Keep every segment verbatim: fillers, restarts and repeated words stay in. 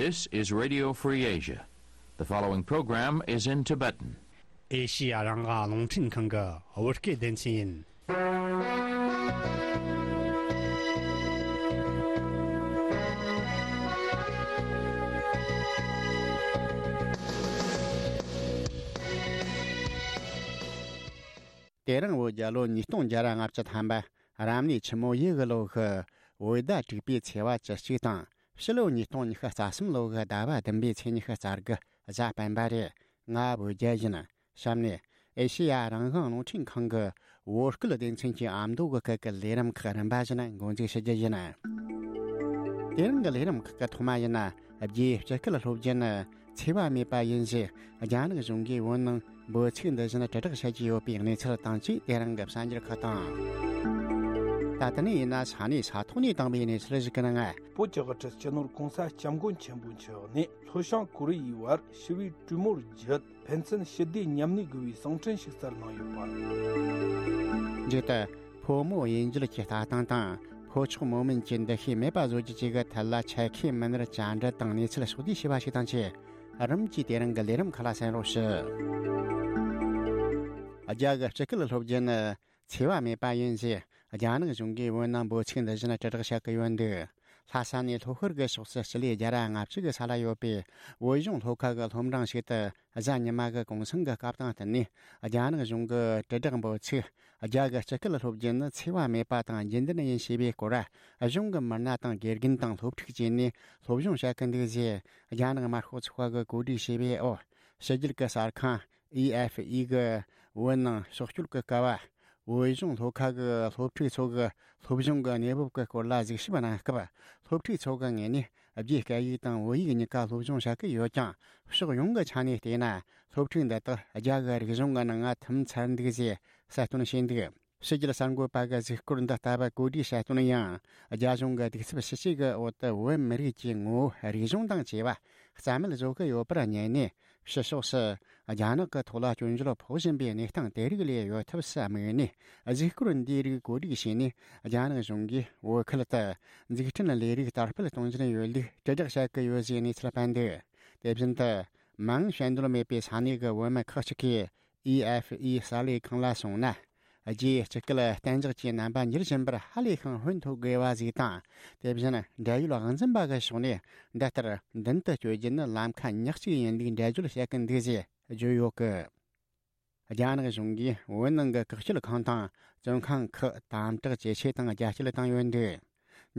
This is Radio Free Asia. The following program is in Tibetan. ཨེ་ཤི་ཡ་རང་དབང་རླུང་འཕྲིན་ཁང་གི་བོད་སྐད་སྡེ་ཚན་ཡིན། དེ་རིང་བོད་རྒྱལ་ལོ་ཉིས་སྟོང་བརྒྱ་ར་ལྔ་བཅུ་ཐམ་པ། རབ་གནས་ཆུ་མོ་ཡོས་གི་ལོ་གི་བོད་ཟླ་དྲུག་པའི་ཚེས་པ་བཅུ་གཅིག་དང་། ཕྱི་ལོ་ཉིས་སྟོང་ཉི་ཤུ་རྩ་གསུམ་ལོ་གི་ཟླ་བ་བདུན་པའི་ཚེས་ཉི་ཤུ་རྩ་དགུ་གཟའ་སྤེན་པ་རེད། ང་བོད་རྒྱལ་ཡིན། གཤམ་ནས་ཨེ་ཤེ་ཡ་རང་དབང་རླུང་འཕྲིན་ཁང་གི་བོད་སྐད་སྡེ་ཚན་གྱི་ཨ་མདོ་གི་སྐད་ཀྱི་ལས་རིམ་ཁག་རིམ་པ་བཞིན་འགོ་འཛུགས་ཞུ་རྒྱུ་ཡིན། དེ་རིང་གི་ལས་རིམ་ཁག་གི་ཐོག་མ་ཡིན་ན། རྒྱའི་སྤྱི་སྐད་སློབ་སྦྱོང་ནི་འཚེ་བ་མེད་པ་ཡིན་ཞེས་རྒྱ་ནག་གཞུང་གིས་བོད་ནང་འབོད་ཚིག་འདི་བཞིན་དྲིལ་བསྒྲགས་བྱེད་ཀྱི་ཡོད་པའི་གནས་ཚུལ་དང་བཅས། དེ་རིང་གི་གསར་འགྱུར་ཁག་དང་། ད་ལྟ་ནས་ཡིན་ན་ས་གནས་ས་ཐོག་ནས་བཏང་བའི་གནས་ཚུལ་ཞིག་གི་ནང་། བོད་ཀྱི་དབུ་ཁྲིད་སྤྱི་ནོར་༸གོང་ས་༸སྐྱབས་མགོན་ཆེན་པོ་མཆོག་ནས་ལྷོ་བྱང་ཀོ་རི་ཡའི་བར་ཞི་བའི་གྲོས་མོལ་བརྒྱུད། ཕན་ཚུན་ཞི་བདེ་མཉམ་གནས་དགོས་པའི་གསུང་འཕྲིན་ཞིག་བསྩལ་གནང་ཡོད་པ། མཇུག་ཏུ། ཕོ་མོ་དབྱེ་འབྱེད་ཀྱི་ལྟ་སྟངས་དང་། ཕོ་མཆོག་མོ་དམན་གྱི་འདུ་ཤེས་མེད་པ་བཟོ་རྒྱུ་བཅས་ཀྱི་ཐད་ལ་ཆ་ཤས་མི་སྣར་བཅར་འདྲི་དང་གནས་ཚུལ་ཕྱོགས་བསྡུས་བྱས་པ་ཞིག་དང་བཅས། རིམ་གྱིས་དེ་རིང་གི་ལས་རིམ་ཁག་ལ་གསན་རོགས་ཞུ། རྒྱ་གི་སྤྱི་སྐད་སློབ་སྦྱོང་ནི་འཚེ་བ་མེད་པ་ཡིན་ཞེས་རྒྱ་ནག་གཞུང་གིས་བོད་ནང་འབོད་ཚིག་འདི་བཞིན་དྲིལ་བསྒྲགས་བྱེད་ཀྱི་ཡོད་འདུག་ལྷ་ས་ནས་ལྷོ་ཤར་གྱི་ཕྱོགས་སུ་སྤྱི་ལེ་བརྒྱ་ར་ལྔ་བཅུ་གི་ས་ལ་ཡོད་པའི་བོད་གཞུང་སློབ་ཁག་གི་སློབ་འབྲིང་ཞིག་ཏུ། གཟའ་ཉི་མ་གི་གུང་སེང་གི་སྐབས་དང་བསྟུན་ནས། རྒྱ་ནག་གཞུང་གི་དྲིལ་བསྒྲགས་འབོད་ཚིག་རྒྱ་གི་སྤྱི་སྐད་སློབ་སྦྱོང་ནི་འཚེ་བ་མེད་པ་དང་རྒྱུན་ལྡན་ཡིན་ཞེས་པའི་སྐོར། གཞུང་གི་མི་སྣ་དང་དགེ་རྒན་དང་སློབ་ཕྲུག་བཅས་ནས་སློབ་སྦྱོང་བྱ་གི་འདུག་ཅེས་རྒྱ་ནག་དམར་ཤོག་ཚོགས་པ་གིས་གོ་སྒྲིག་བྱས་པའི་འོག་ཕྱི་རྒྱལ་གྱི་གསར་ཁང་ཨི་ཨེཕ་ཨི་གི་བོད་ནང་ཕྱོགས་བསྐྱོད་ཀྱི་སྐབས། བོད་གཞུང་སློབ་ཁག་གི་སློབ་ཕྲུག་ཚོ་གི་སློབ་སྦྱོང་གི་གནས་བབ་ཀྱི་སྐོར་ལ་གཟིགས་ཞིབ་གནང་སྐབས། སློབ་ཕྲུག་ཚོ་གི་ངོས་ནས་རྒྱའི་སྐད་ཡིག་དང་བོད་ཡིག་གཉིས་ཀ་སློབ་སྦྱོང་བྱ་གི་ཡོད་ཀྱང་། ཕྱོགས་ཡོངས་ཀྱི་ཆ་ནས་བལྟས་ན། སློབ་ཕྲུག་འདི་དག་རྒྱ་གི་རིག་གཞུང་གི་ནང་ང་ཐིམ་ཚར་འདུག་ཅེས་གསལ་སྟོན་བྱས་འདུག་ཕྱི་རྒྱལ་གསར་འགོད་པ་གི་གཟིགས་སྐོར་འདི་ལྟ་བུ་གོ་སྒྲིག་བྱས་དོན་ཡང་། རྒྱ་གཞུང་གི་གདུག་རྩུབ་ཞི་བྱེད་ཀྱི་འོག་ཏུ་བོད་མི་རིགས་ཀྱི་ངོ་བོ་རིག་གཞུང་དང་བཅས་པ་རྩ་མེད་བཟོ་གི་ཡོད་པར་ཉན་ནས། ཕྱི་ཕྱོགས་སུ་རྒྱ་ནག་གི་ཐོག་ལ་སྐྱོན་བརྗོད་ཕོག་བཞིན་པའི་གནས་སྟངས་དེ་རིགས་ལས་ཡོལ་ཐབས་སུ་དམིགས་ནས། གཟིགས་སྐོར་འདིའི་རིགས་གོ་སྒྲིག་བྱས་ནས། རྒྱ་ནག་གཞུང་གིས་བོད་ཁུལ་དུ་འཛུགས་སྐྲུན་ལས་རིགས་དར་སྤེལ་གཏོང་བཞིན་ཡོད་ལུགས་དྲིལ་བསྒྲགས་བྱ་གི་ཡོད་ཅེས་གནས་ཚུལ་སྤེལ་འདུག་དེ་བཞིན་དུ། མིང་བཤད་འདོད་མེད་པའི་ས་གནས་ཀྱི་བོད་མི་ཁག་ཅིག་གིས། ཨི་ཨེཕ་ཨི་གསར་ལས་ཁང་ལ་སོང་ན། རྒྱའི་སྤྱི་སྐད་གཏན་འཇགས་ཀྱི་རྣམ་པ་འགྱུར་བཞིན་པར་ཧ་ལས་ཤིང་ཧོན་ཐོར་དགོས་པ་ཞིག་དང་། དེ་བཞིན་འབྲེལ་ཡོད་དབང་འཛིན་པ་གི་ཕྱོགས་ནས་འདི་ལྟར་མདུན་དུ་སྐྱོད་རྒྱུ་ནི་ལམ་ཁ་ཉག་གཅིག་ཡིན་ལུགས་འགྲེལ་བརྗོད་བྱེད་ཀྱི་འདུག་ཅེས་བརྗོད་ཡོད་ཀི། རྒྱ་ནག་གཞུང་གིས་བོད་ནང་གི་བཀག་སྐྱིལ་ཁང་དང་བཙོན་ཁང་ཁག་དམ་དྲག་ཇེ་ཆེ་དང་རྒྱ་སྐྱེད་བཏང་ཡོད་འདུག་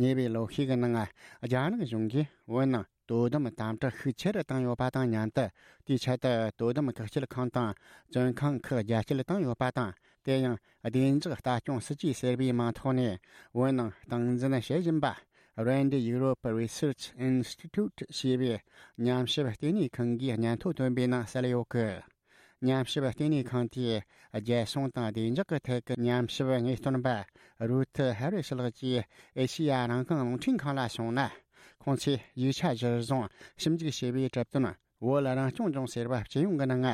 ཉེ་བའི་ལོ་ཤས་ཀྱི་ནང་རྒྱ་ནག་གཞུང་གིས་བོད་ནང་དོ་དམ་དམ་དྲག་ཤུགས་ཆེ་རུ་བཏང་ཡོད་པ་དང་མཉམ་དུ། དེའི་ཆེད་དུ་དོ་དམ་བཀག་སྐྱིལ་ཁང་དང་བཙོན་ཁང་ཁག་རྒྱ་སྐྱེད་བཏང་ཡོད་པ་དང་། དེ་ཡང་བདེ་འཇགས་ལྟ་སྐྱོང་སྲིད་ཇུས་ཟེར་བའི་མིང་ཐོག་ནས་བོད་ནང་སྟངས་འཛིན་བྱེད་བཞིན་པ། Rand Europe Research Institute ཞེས་པའི་ཉམས་ཞིབ་ལྟེ་གནས་ཁང་གིས་སྙན་ཐོ་བཏོན་པའི་ནང་གསལ་ཡོད་ཀི། ཉམས་ཞིབ་ལྟེ་གནས་ཁང་དེའི་རྒྱལ་སྲུང་དང་བདེ་འཇགས་ཀྱི་ཐད་ཀྱི་ཉམས་ཞིབ་དངོས་སྟོན་པ་རུ་ཐི་ཧེ་རི་ཤི་ལགས་ཀྱིས་ཨེ་ཤེ་ཡ་རང་དབང་རླུང་འཕྲིན་ཁང་ལ་གསུངས་ན། ཁོང་ཚོས་ཡིག་ཆ་གཞིར་བཟུང་ཞིབ་འཇུག་བྱས་པའི་གྲུབ་དོན། བོད་རང་སྐྱོང་ལྗོངས་ཟེར་བ་སྤྱི་ཡོངས་ཀྱི་ནང་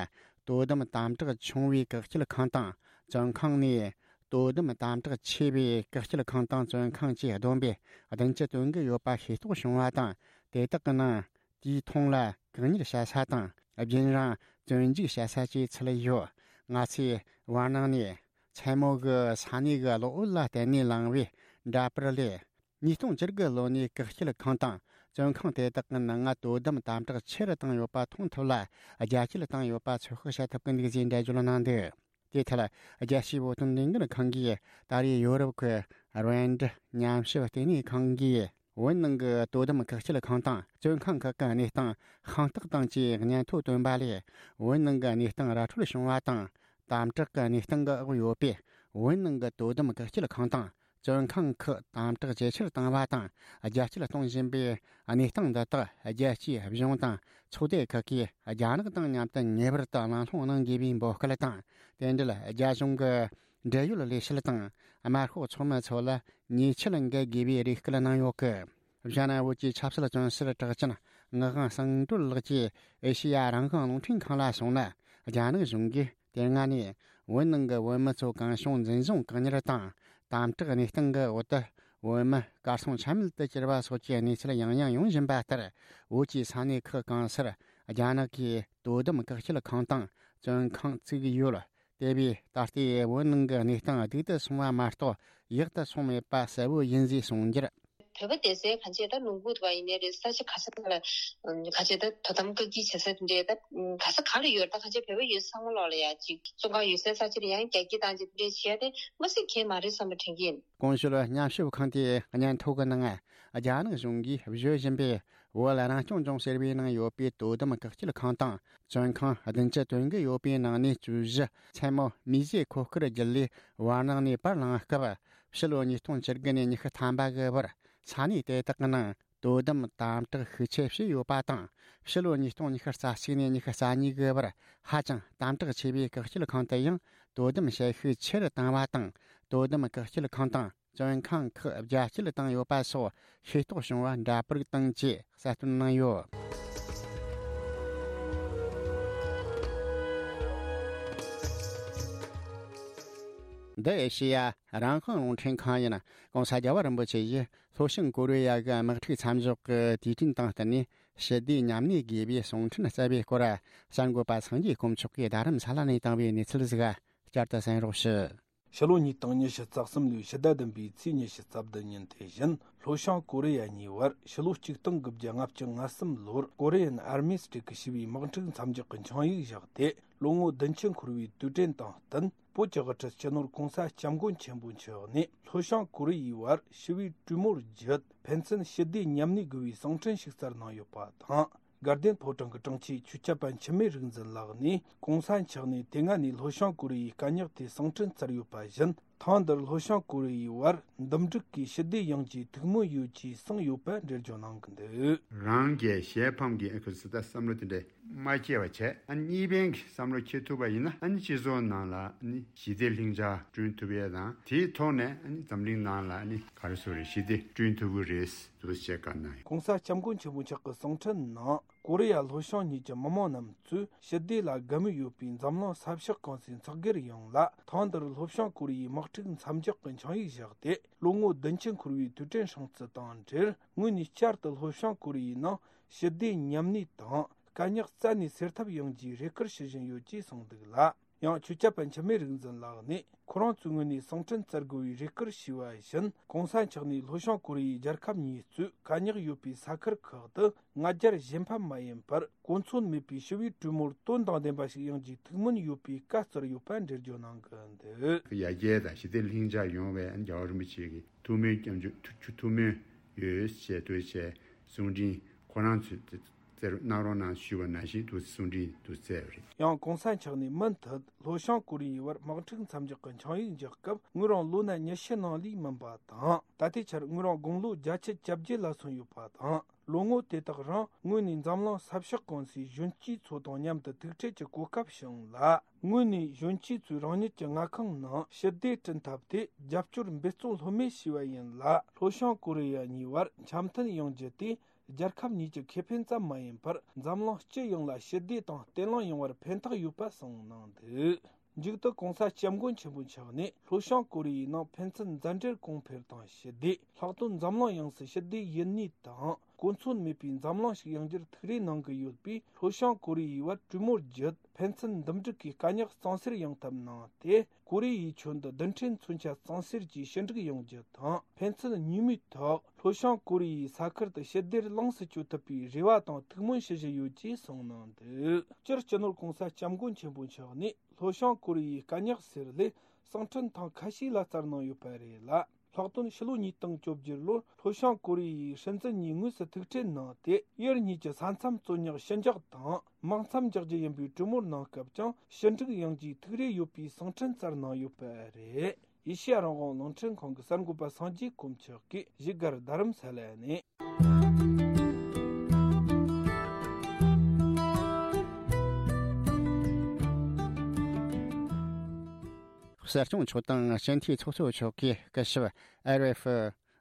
དོ་དམ་དམ་དྲག་ཆུང་བའི་བཀག་སྐྱིལ་ཁང་དང་བཙོན་ཁང་ནས། དོ་དམ་དམ་དྲག་ཆེ་བའི་བཀག་སྐྱིལ་ཁང་དང་བཙོན་ཁང་བཅས་བསྡོམས་པས་བདུན་ཅུ་དོན་དགུ་ཡོད་པ་ཤེས་རྟོགས་བྱུང་བ་དང་། དེ་དག་གི་ནང་། དེའི་མཐོང་ལ་བཀག་ཉར་བྱ་ས་དང་རྒྱུན་རིང་བཙོན་འཇུག་བྱ་ས་བཅས་ཚུད་ཡོད། ང་ཚོས་བར་སྣང་ནས་མཚན་མོ་གི་ས་གནས་ཀྱི་གློག་འོད་ལ་བརྟེན་ནས་བླངས་པའི་འདྲ་པར་ལས། ཉིས་སྟོང་བཅུ་དགུ་ལོ་ནས་བཀག་སྐྱིལ་ཁང་དང་བཙོན་ཁང་དེ་དག་གི་ནང་དོ་དམ་དམ་དྲག་ཆེ་རུ་བཏང་ཡོད་པ་མཐོང་ཐུབ་ལ། རྒྱ་སྐྱེད་བཏང་ཡོད་པ་ཚོད་དཔག་བྱ་ཐུབ་ཀྱི་འདུག་ཅེས་འགྲེལ་བརྗོད་གནང་འདུག་དེའི་ཐད། རྒྱལ་སྤྱིའི་བོད་དོན་ལས་འགུལ་ཁང་གིས་ད་རེས་ཡོ་རོབ་ཀྱི་རེན་ཌི་ཉམས་ཞིབ་ལྟེ་གནས་ཁང་གིས། བོད་ནང་གི་དོ་དམ་བཀག་སྐྱིལ་ཁང་དང་བཙོན་ཁང་ཁག་གི་གནས་སྟངས་ཤིན་ཏུ་དང་བཅས་སྙན་ཐོ་བཏོན་པ་ལས། བོད་ནང་གི་གནས་སྟངས་ར་འཕྲོད་བྱུང་བ་དང་། དམ་དྲག་གི་གནས་སྟངས་ཀྱི་འོག་ཡོད་པས། བོད་ནང་གི་དོ་དམ་བཀག་སྐྱིལ་ཁང་དང་། བཙོན་ཁང་ཁག་དམ་དྲག་ཇེ་ཆེར་བཏང་བ་དང་། རྒྱ་སྐྱེད་གཏོང་བཞིན་པའི་གནས་སྟངས་འདི་དག་རྒྱལ་སྤྱིའི་གཞུང་དང་ཚོགས་སྡེ་ཁག་གིས་རྒྱ་ནག་དང་མཉམ་དུ་ངེས་པར་དུ་གླེང་སློང་གནང་དགོས་པའི་འབོད་སྐུལ་དང་། དེ་འབྲེལ་རྒྱ་གཞུང་གི་འབྲེལ་ཡོད་ལས་བྱེད་དང་དམར་ཤོག་ཚོགས་མི་ཚོ་ལ་ཉེས་ཆད་འགེལ་དགོས་པའི་རེ་སྐུལ་གནང་ཡོད་སྐད། ཞྭ་ནང་བོད་ཀྱི་ཆབ་སྲིད་བཙོན་ཟུར་གྲགས་ཅན་ངག་དབང་གསང་གྲོལ་ལགས་ཀྱིས་ཨེ་ཤེ་ཡ་རང་དབང་རླུང་འཕྲིན་ཁང་ལ་གསུངས་ན། རྒྱ་ནག་གཞུང་གིས་དེ་སྔ་ནས་བོད་ནང་གི་བོད་མི་ཚོ་གང་བྱུང་འཛིན་བཟུང་བཀག་ཉར་དང་དམ་དྲག་གནས་སྟངས་ཀྱི་འོག་ཏུ་ བོད་མི་གར་སོང་ཆ་མེད་དུ་གྱུར་བ་སོགས་ཀྱི་གནས་ཚུལ་ཡང་ཡང་ཡོང་བཞིན་པ་ལྟར། བོད་ཀྱི་ས་གནས་ཁག་གང་སར་རྒྱ་ནག་གིས་དོ་དམ་བཀག་སྐྱིལ་ཁང་དང་བཙོན་ཁང་བཙུགས་ཡོད། དེ་བས་ད་ལྟའི་བོད་ནང་གི་གནས་སྟངས་སྡུག་ཏུ་སོང་བ་མ་གཏོགས་ཡག་ཏུ་སོང་མེད་པ་གསལ་བོ་ཡིན་ཞེས་གསུངས་རྒྱུར། བོད་པ་སྡོད་སའི་གང་ཅི་ད་ལུང་པ་དེ་ཡིན་ནའི་རེད། ས་ཆ་ག་ས་ག་ལ་གང་ཅི་ད་དོ་དམ་བཀག་སྐྱིལ་བྱེད་ས་དེ་འདྲའི་ད་ག་ས་ག་ལ་ཡོད། ད་གང་ཅི་བོད་པ་ཡོད་ས་ཚང་མ་ལོག་ལ་ཡ་ཅིག་བཙོན་ཁང་ཡོད་སའི་ས་ཆ་ལ་ཡང་རྒྱ་སྐྱེད་བཏང་ཅིག་དེ་འདྲའི་བྱས་ཏེ་མ་སྲིད་གལ་མ་རེད་བསམ་པ་དྲན་གྱི་ཡིན། ཀོང་ཞོལ་ཉམས་ཞིབ་ཁང་དེའི་སྙན་ཐོ་གི་ནང་རྒྱ་ནག་གཞུང་གིས་བཟོ་བཞིན་པའི་བོད་རང་སྐྱོང་ལྗོངས་ཟེར་བའི་ནང་ཡོད་པའི་དོ་དམ་བཀག་སྐྱིལ་ཁང་དང་བཙོན་ཁང་བདུན་ཅུ་དོན་དགུ་ཡོད་པའི་ནང་ནས་བཅུ་བཞི་མཚན་མོ་མིས་བཟོས་མཁོ་དཀར་བརྒྱུད་ལས་བར་སྣང་ནས་པར་བླངས་སྐབས། ཕྱི་ལོ་ཉིས་སྟོང་བཅུ་དགུ་ནས་ཉི་ཤུ་ཐམ་པ་གི་བར་ས་གནས་དེ་དག་གི་ནང་དོ་དམ་དམ་དྲག་ཤུགས་ཆེ་བྱས་ཡོད་པ་དང་། ཕྱི་ལོ་ཉིས་སྟོང་ཉི་ཤུ་རྩ་གཅིག་ནས་ཉི་ཤུ་རྩ་གཉིས་གི་བར་ཧ་ཅང་དམ་དྲག་ཆེ་བའི་བཀག་སྐྱིལ་ཁང་དུ་ཡང་དོ་དམ་བྱེད་ཤུགས་ཆེ་རུ་བཏང་བ་དང་། དོ་དམ་བཀག་སྐྱིལ་ཁང་དང་བཙོན་ཁང་ཁག་རྒྱ་སྐྱེད་བཏང་ཡོད་པ་སོགས་ཤེས་རྟོགས་བྱུང་བ་འདྲ་པར་བཏང་ཅེས་གསལ་སྟོན་གནང་ཡོད། འདི་ཨེ་ཤེ་ཡ་རང་དབང་རླུང་འཕྲིན་ཁང་ཡིན། ྋགོང་ས་རྒྱལ་བ་རིན་པོ་ཆེ་ཡིས་ལྷོ་བྱང་ཀོ་རི་ཡ་གི་དམག་འཁྲུག་མཚམས་འཇོག་གི་དུས་དྲན་དང་བསྟུན་ནས་ཞི་བདེ་མཉམ་གནས་དགོས་པའི་གསུང་འཕྲིན་བསྩལ་བའི་སྐོར། གསར་འགོད་པ་སངས་རྒྱས་དཀོན་མཆོག་གིས་རྡ་རམ་ས་ལ་ནས་བཏང་བའི་གནས་ཚུལ་ཞིག་བསྐྱར་དུ་གསན་རོགས་ཞུ། ཕྱི་ལོ་ཉིས་སྟོང་ཉི་ཤུ་རྩ་གསུམ་ལོའི་ཕྱི་ཟླ་བདུན་པའི་ཚེས་ཉི་ཤུ་རྩ་བདུན་ཉིན་དེ་བཞིན་ལྷོ་བྱང་ཀོ་རི་ཡ་གཉིས་བར་ཕྱི་ལོ་ཆིག་སྟོང་དགུ་བརྒྱ་ལྔ་བཅུ་ང་གསུམ་ལོར་ཀོ་རི་ཡན་ཨར་མི་སི་ཊི་གི་ཞི་བའི་དམག་འཁྲུག་མཚམས་འཇོག་གི་ཆིངས་ཡིག་བཞག་སྟེ། ལོ་ངོ་བདུན་ཅུ་འཁོར་བའི་དུས་དྲན་དང་བསྟུན། བོད་ཀྱི་དབུ་ཁྲིད་སྤྱི་ནོར་༧གོང་ས་༧སྐྱབས་མགོན་ཆེན་པོ་མཆོག་ནས་ལྷོ་བྱང་ཀོ་རི་ཡའི་བར་ཞི་བའི་གྲོས་མོལ་བརྒྱུད་ཕན་ཚུན་ཞི་བདེ་མཉམ་གནས་དགོས་པའི་གསུང་འཕྲིན་ཞིག་སྩལ་གནང་ཡོད་པ་དང་། དགའ་ལྡན་ཕོ་བྲང་གི་དྲུང་ཆེ་ཆོས་སྐྱབས་པ་འཆི་མེད་རིག་འཛིན་ལགས་ནས་༧གོང་ས་མཆོག་ནས་དེ་སྔ་ནས་ལྷོ་བྱང་ཀོ་རི་ཡའི་དཀའ་རྙོག་དེ་གསུང་འཕྲིན་བསྩལ་ཡོད་པ་བཞིན། ཐེངས་འདིར་ལྷོ་བྱང་ཀོ་རི་ཡའི་བར་འདུམ་འགྲིག་གིས་ཞི་བདེ་ཡོང་ཆེད་ཐུགས་སྨོན་ཡོད་ཅེས་གསུངས་ཡོད་པ་འགྲེལ་བརྗོད་གནང་གི་འདུག། རང་གི་ཞལ་ཕམ་གྱི་ཨ་ཁུ་སི་ད་བསམ་བློ་དེ་འདྲ་མ་སྐྱེ་བ་བྱས། ཨ་ནི་གཉིས་ཕན་གྱི་བསམ་བློ་སྐྱེ་ཐུབ་པ་ཡིན་ན། ཨ་ནི་སྤྱི་ཚོགས་ནང་ལ་ཨ་ནི་ཞི་བདེ་ལྷིང་འཇགས་བསྐྲུན་ཐུབ་ཡས་དང་། དེའི་ཐོག་ནས་ཨ་ནི་འཛམ་གླིང་ནང་ལ་ཨ་ནི་ག་རེ་ཟེར་རེད། ཞི་བདེ་བསྐྲུན་ཐུབ་ཀྱི་རེད་འདུག་ཅེས་བཀའ་གནང་ཡོད། ྋགོང་ས་ྋསྐྱབས་མགོན་ཆེན་པོ་མཆོག་གི་གསུང་འཕྲིན་ནང་། ཀོ་རི་ཡ་ལྷོ་བྱང་གཉིས་ཀྱི་མི་མང་རྣམས་ཚོས་ཞི་བདེ་ལ་དགའ་མོས་ཡོད་པའི་འཛམ་གླིང་ས་ཕྱོགས་གང་སའི་ཚོགས་སྒེར་ཡོངས་ལ་ཐེངས་འདིར་ལྷོ་བྱང་ཀོ་རི་ཡའི་དམག་འཁྲུག་མཚམས་འཇོག་གི་ཆིངས་ཡིག་བཞག་སྟེ། ལོ་ངོ་བདུན་ཅུ་འཁོར་བའི་དུས་དྲན་སྲུང་བརྩི་དང་འབྲེལ། ངོས་ནས་བསྐྱར་དུ་ལྷོ་བྱང་ཀོ་རི་ཡའི་ནང་ཞི་བདེ་མཉམ་གནས་དང་། དཀའ་རྙོག་རྩད་ནས་སེལ་ཐབས་ཡོང་རྒྱུའི་རེ་སྐུལ་ཞུ་བཞིན་ཡོད་ཅེས་གསུངས་འདུག་ལ། ཡང་ཆོས་སྐྱབས་པ་འཆི་མེད་རིག་འཛིན་ལགས་ནས་ཁོ་རང་ཚོའི་ངོས་ནས་གསུང་འཕྲིན་བསྩལ་དགོས་པའི་རེ་སྐུལ་ཞུས་པ་བཞིན། ྋགོང་ས་མཆོག་ནས་ལྷོ་བྱང་ཀོ་རི་ཡའི་རྒྱལ་ཁབ་གཉིས་གཙོས་དཀའ་རྙོག་ཡོད་པའི་ས་ཁུལ་ཁག་ཏུ་ང་རྒྱལ་གཞན་ཕམ་མ་ཡིན་པར། གོ་མཚོན་མེད་པའི་ཞི་བའི་གྲོས་མོལ་དོན་དང་ལྡན་པ་ཞིག་ཡོང་རྒྱུའི་ཐུགས་སྨོན་ཡོད་པའི་བཀའ་སྩལ་ཡོད་པ་འགྲེལ་བརྗོད་གནང་གི་འདུག། ཡར་རྒྱས་དང་ཞི་བདེ་ལྷིང་འཇགས་ཡོང་བའི་རྒྱལ་བ་རིན་པོ་ཆེ་གི་ཐུགས་སྨོན། སྐྱབས་འཇུག་ཐུགས་ཐུགས་སྨོན་ཡོད་ཅེས་ཐུགས་རྗེ་ཆེ་གསུང་འཕྲིན་ཁོ་རང་ཚོས་བསྩལ་གནང་རོགས་གནང་ཞུས་པ་ནང་བཞིན་དུ་གསུང་འཕྲིན་དུ་བསྩལ་བ་རེད། ཡང་ྋགོང་ས་མཆོག་ནས་མུ་མཐུད་ལྷོ་བྱང་ཀོ་རི་ཡའི་བར་དམག་འཁྲུག་མཚམས་འཇོག་གི་ཆིངས་ཡིག་འཇོག་སྐབས་ངོས་རང་ལོ་ན་ཉི་ཤུ་ནང་ལས་མིན་པ་དང་། ད་ལྟའི་ཆར་ངོས་རང་དགུང་ལོ་བརྒྱད་ཅུ་གྱ་བརྒྱད་ལ་སོན་ཡོད་པ་དང་། ལོ་ངོ་དེ་དག་རིང་ངོས་ནས་འཛམ་གླིང་ས་ཕྱོགས་གང་སའི་གཞོན་སྐྱེས་ཚོ་དང་མཉམ་དུ་ཐུག་འཕྲད་ཀྱི་གོ་སྐབས་བྱུང་ལ། ངོས་ནས་གཞོན་སྐྱེས་ཚོས་རང་ཉིད་ཀྱི་མངའ་ཁོངས་ནང་ཞི་བདེ་བསྐྲུན་ཐབས་དེ་རྒྱབ་སྐྱོར་འབད་བརྩོན་ལྷོད་མེད་བྱས་པ་ཡིན་ལ། ལྷོ་བྱང་ཀོ་རི་ཡ་གཉིས་བར་འཆམ་མཐུན་ཡོང་རྒྱུ་དེ་རྒྱལ་ཁབ་གཉིས་ཀྱི་ཁེ་ཕན་ཙམ་མ་ཡིན་པར། འཛམ་གླིང་སྤྱི་ཡོངས་ལ་ཞི་བདེ་དང་བརྟན་ལྷིང་ཡོང་བར་ཕན་ཐོགས་ཡོད་པ་གསུངས་གནང་འདུག། མཇུག་ཏུ་ྋགོང་ས་ྋསྐྱབས་མགོན་ཆེན་པོ་མཆོག་ནས་ལྷོ་བྱང་ཀོ་རི་ཡའི་ནང་ཕན་ཚུན་མཛའ་འབྲེལ་གོང་འཕེལ་དང་ཞི་བདེ། ལྷག་དོན་འཛམ་གླིང་ཡོངས་སུ་ཞི་བདེ་ཡུན་གནས་དང་གོ་མཚོན་མེད་པའི་འཛམ་གླིང་ཞིག་ཡོང་རྒྱུར་ཐུགས་རེ་གནང་གི་ཡོད་པས། ལྷོ་བྱང་ཀོ་རི་ཡའི་བར་གྲོས་མོལ་བརྒྱུད་ཕན་ཚུན་འདུམ་འགྲིག་གིས་དཀའ་རྙོག་གཙང་སེལ་ཡོང་ཐབས་གནང་སྟེ། ཀོ་རི་ཡའི་ཁྱོན་དུ་རྡུལ་ཕྲན་མཚོན་ཆ་གཙང་སེལ་གྱིས་ཞི་འགྲིག་ཡོང་རྒྱུ་དང་། ཕན་ཚུན་གཉིས་མོས་ཐོག་ལྷོ་བྱང་ཀོ་རི་ཡའི་ས་ཁུལ་དུ་ཞི་བདེར་ལོངས་སུ་སྤྱོད་ཐུབ་པའི་རེ་བ་དང་ཐུགས་སྨོན་ཞུ་བཞིན་ཡོད་ཅེས་གསུངས་གནང་འདུག། སྤྱིར་སྤྱི་ནོར་ྋགོང་ས་ྋསྐྱབས་མགོན་ཆེན་པོ་མཆོག་ནས། ལྷོ་བྱང་ཀོ་རི་ཡའི་དཀའ་རྙོག་སེལ་སླད་གསུང་འཕྲིན་ཐེངས་ཁ་ཤས་ལ་སྩལ་གནང་ཡོད་པ་རེད་ལ། ལྷག་དོན་ཕྱི་ལོ་ཉིས་སྟོང་བཅོ་བརྒྱད་ལོར་ལྷོ་བྱང་ཀོ་རི་ཡའི་སྲིད་འཛིན་གཉིས་དངོས་སུ་ཐུག་འཕྲད་གནང་སྟེ། ཡུལ་གཉིས་ཀྱི་ས་མཚམས་རྩོད་རྙོག་ཞི་འཇགས་དང་དམག་མཚམས་འཇོག་རྒྱུ་ཡིན་པའི་གྲོས་མོལ་གནང་སྐབས་ཀྱང་ཞི་འགྲིག་ཡོང་རྒྱུའི་ཐུགས་རེ་ཡོད་པའི་གསུང་འཕྲིན་སྩལ་གནང་ཡོད་པ་རེད། ཨེ་ཤེ་ཡ་རང་དབང་རླུང་འཕྲིན་ཁང་གི་གསར་འགོད་པ་སངས་རྒྱས་དཀོན་མཆོག་གིས་བཞུགས་སྒར་རྡ་རམ་ས་ལ་ནས། གསར་སྐྱོང་ཚོགས་དང་སྤྱི་འཐུས་ཚོགས་གཙོ་མཆོག་གིས་སྐུ་ཞབས་ཨེ་རེ་ཧྥི་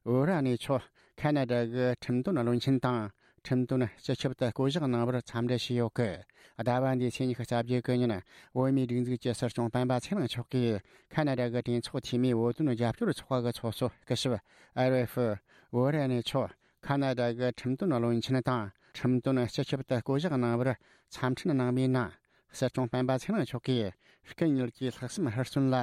ཨོ་ར་ནི་མཆོག་ཁ་ན་ཌ་གི་ཁྲིམས་དོན་བློན་ཆེན་དང་ ཁྲིམས་དོན་སྤྱི་ཁྱབ་ཏུ་བསྐོ་གཞག་གནང་བར་འཚམས་འདྲི་བྱས་ཡོད་སྐད། ཟླ་བ་འདིའི་ཚེས་ཉི་ཤུ་རྩ་བརྒྱད་གི་ཉིན། བོད་མིའི་སྒྲིག་འཛུགས་ཀྱི་སྲིད་སྐྱོང་སྤེན་པ་ཚེ་རིང་མཆོག་གིས་ཁ་ན་ཌ་གི་གྲོས་ཚོགས་འཐུས་མིའི་བོད་དོན་རྒྱབ་སྐྱོར་ཚོགས་པ་གི་ཚོགས་གཙོ་སྐུ་ཞབས་ཨེ་རེ་ཧྥུ་ཝུ་རེ་ནི་མཆོག་ཁ་ན་ཌ་གི་ཁྲིམས་དོན་བློན་ཆེན་དང་ཁྲིམས་དོན་སྤྱི་ཁྱབ་ཏུ་བསྐོ་གཞག་གནང་བར་འཚམས་འཕྲིན་གནང་བའི་ནང་། སྲིད་སྐྱོང་སྤེན་པ་ཚེ་རིང་མཆོག་གིས། སྐུ་ཉིད་ཀྱི་ལྷག་བསམ་ཧུར་བརྩོན་ལ་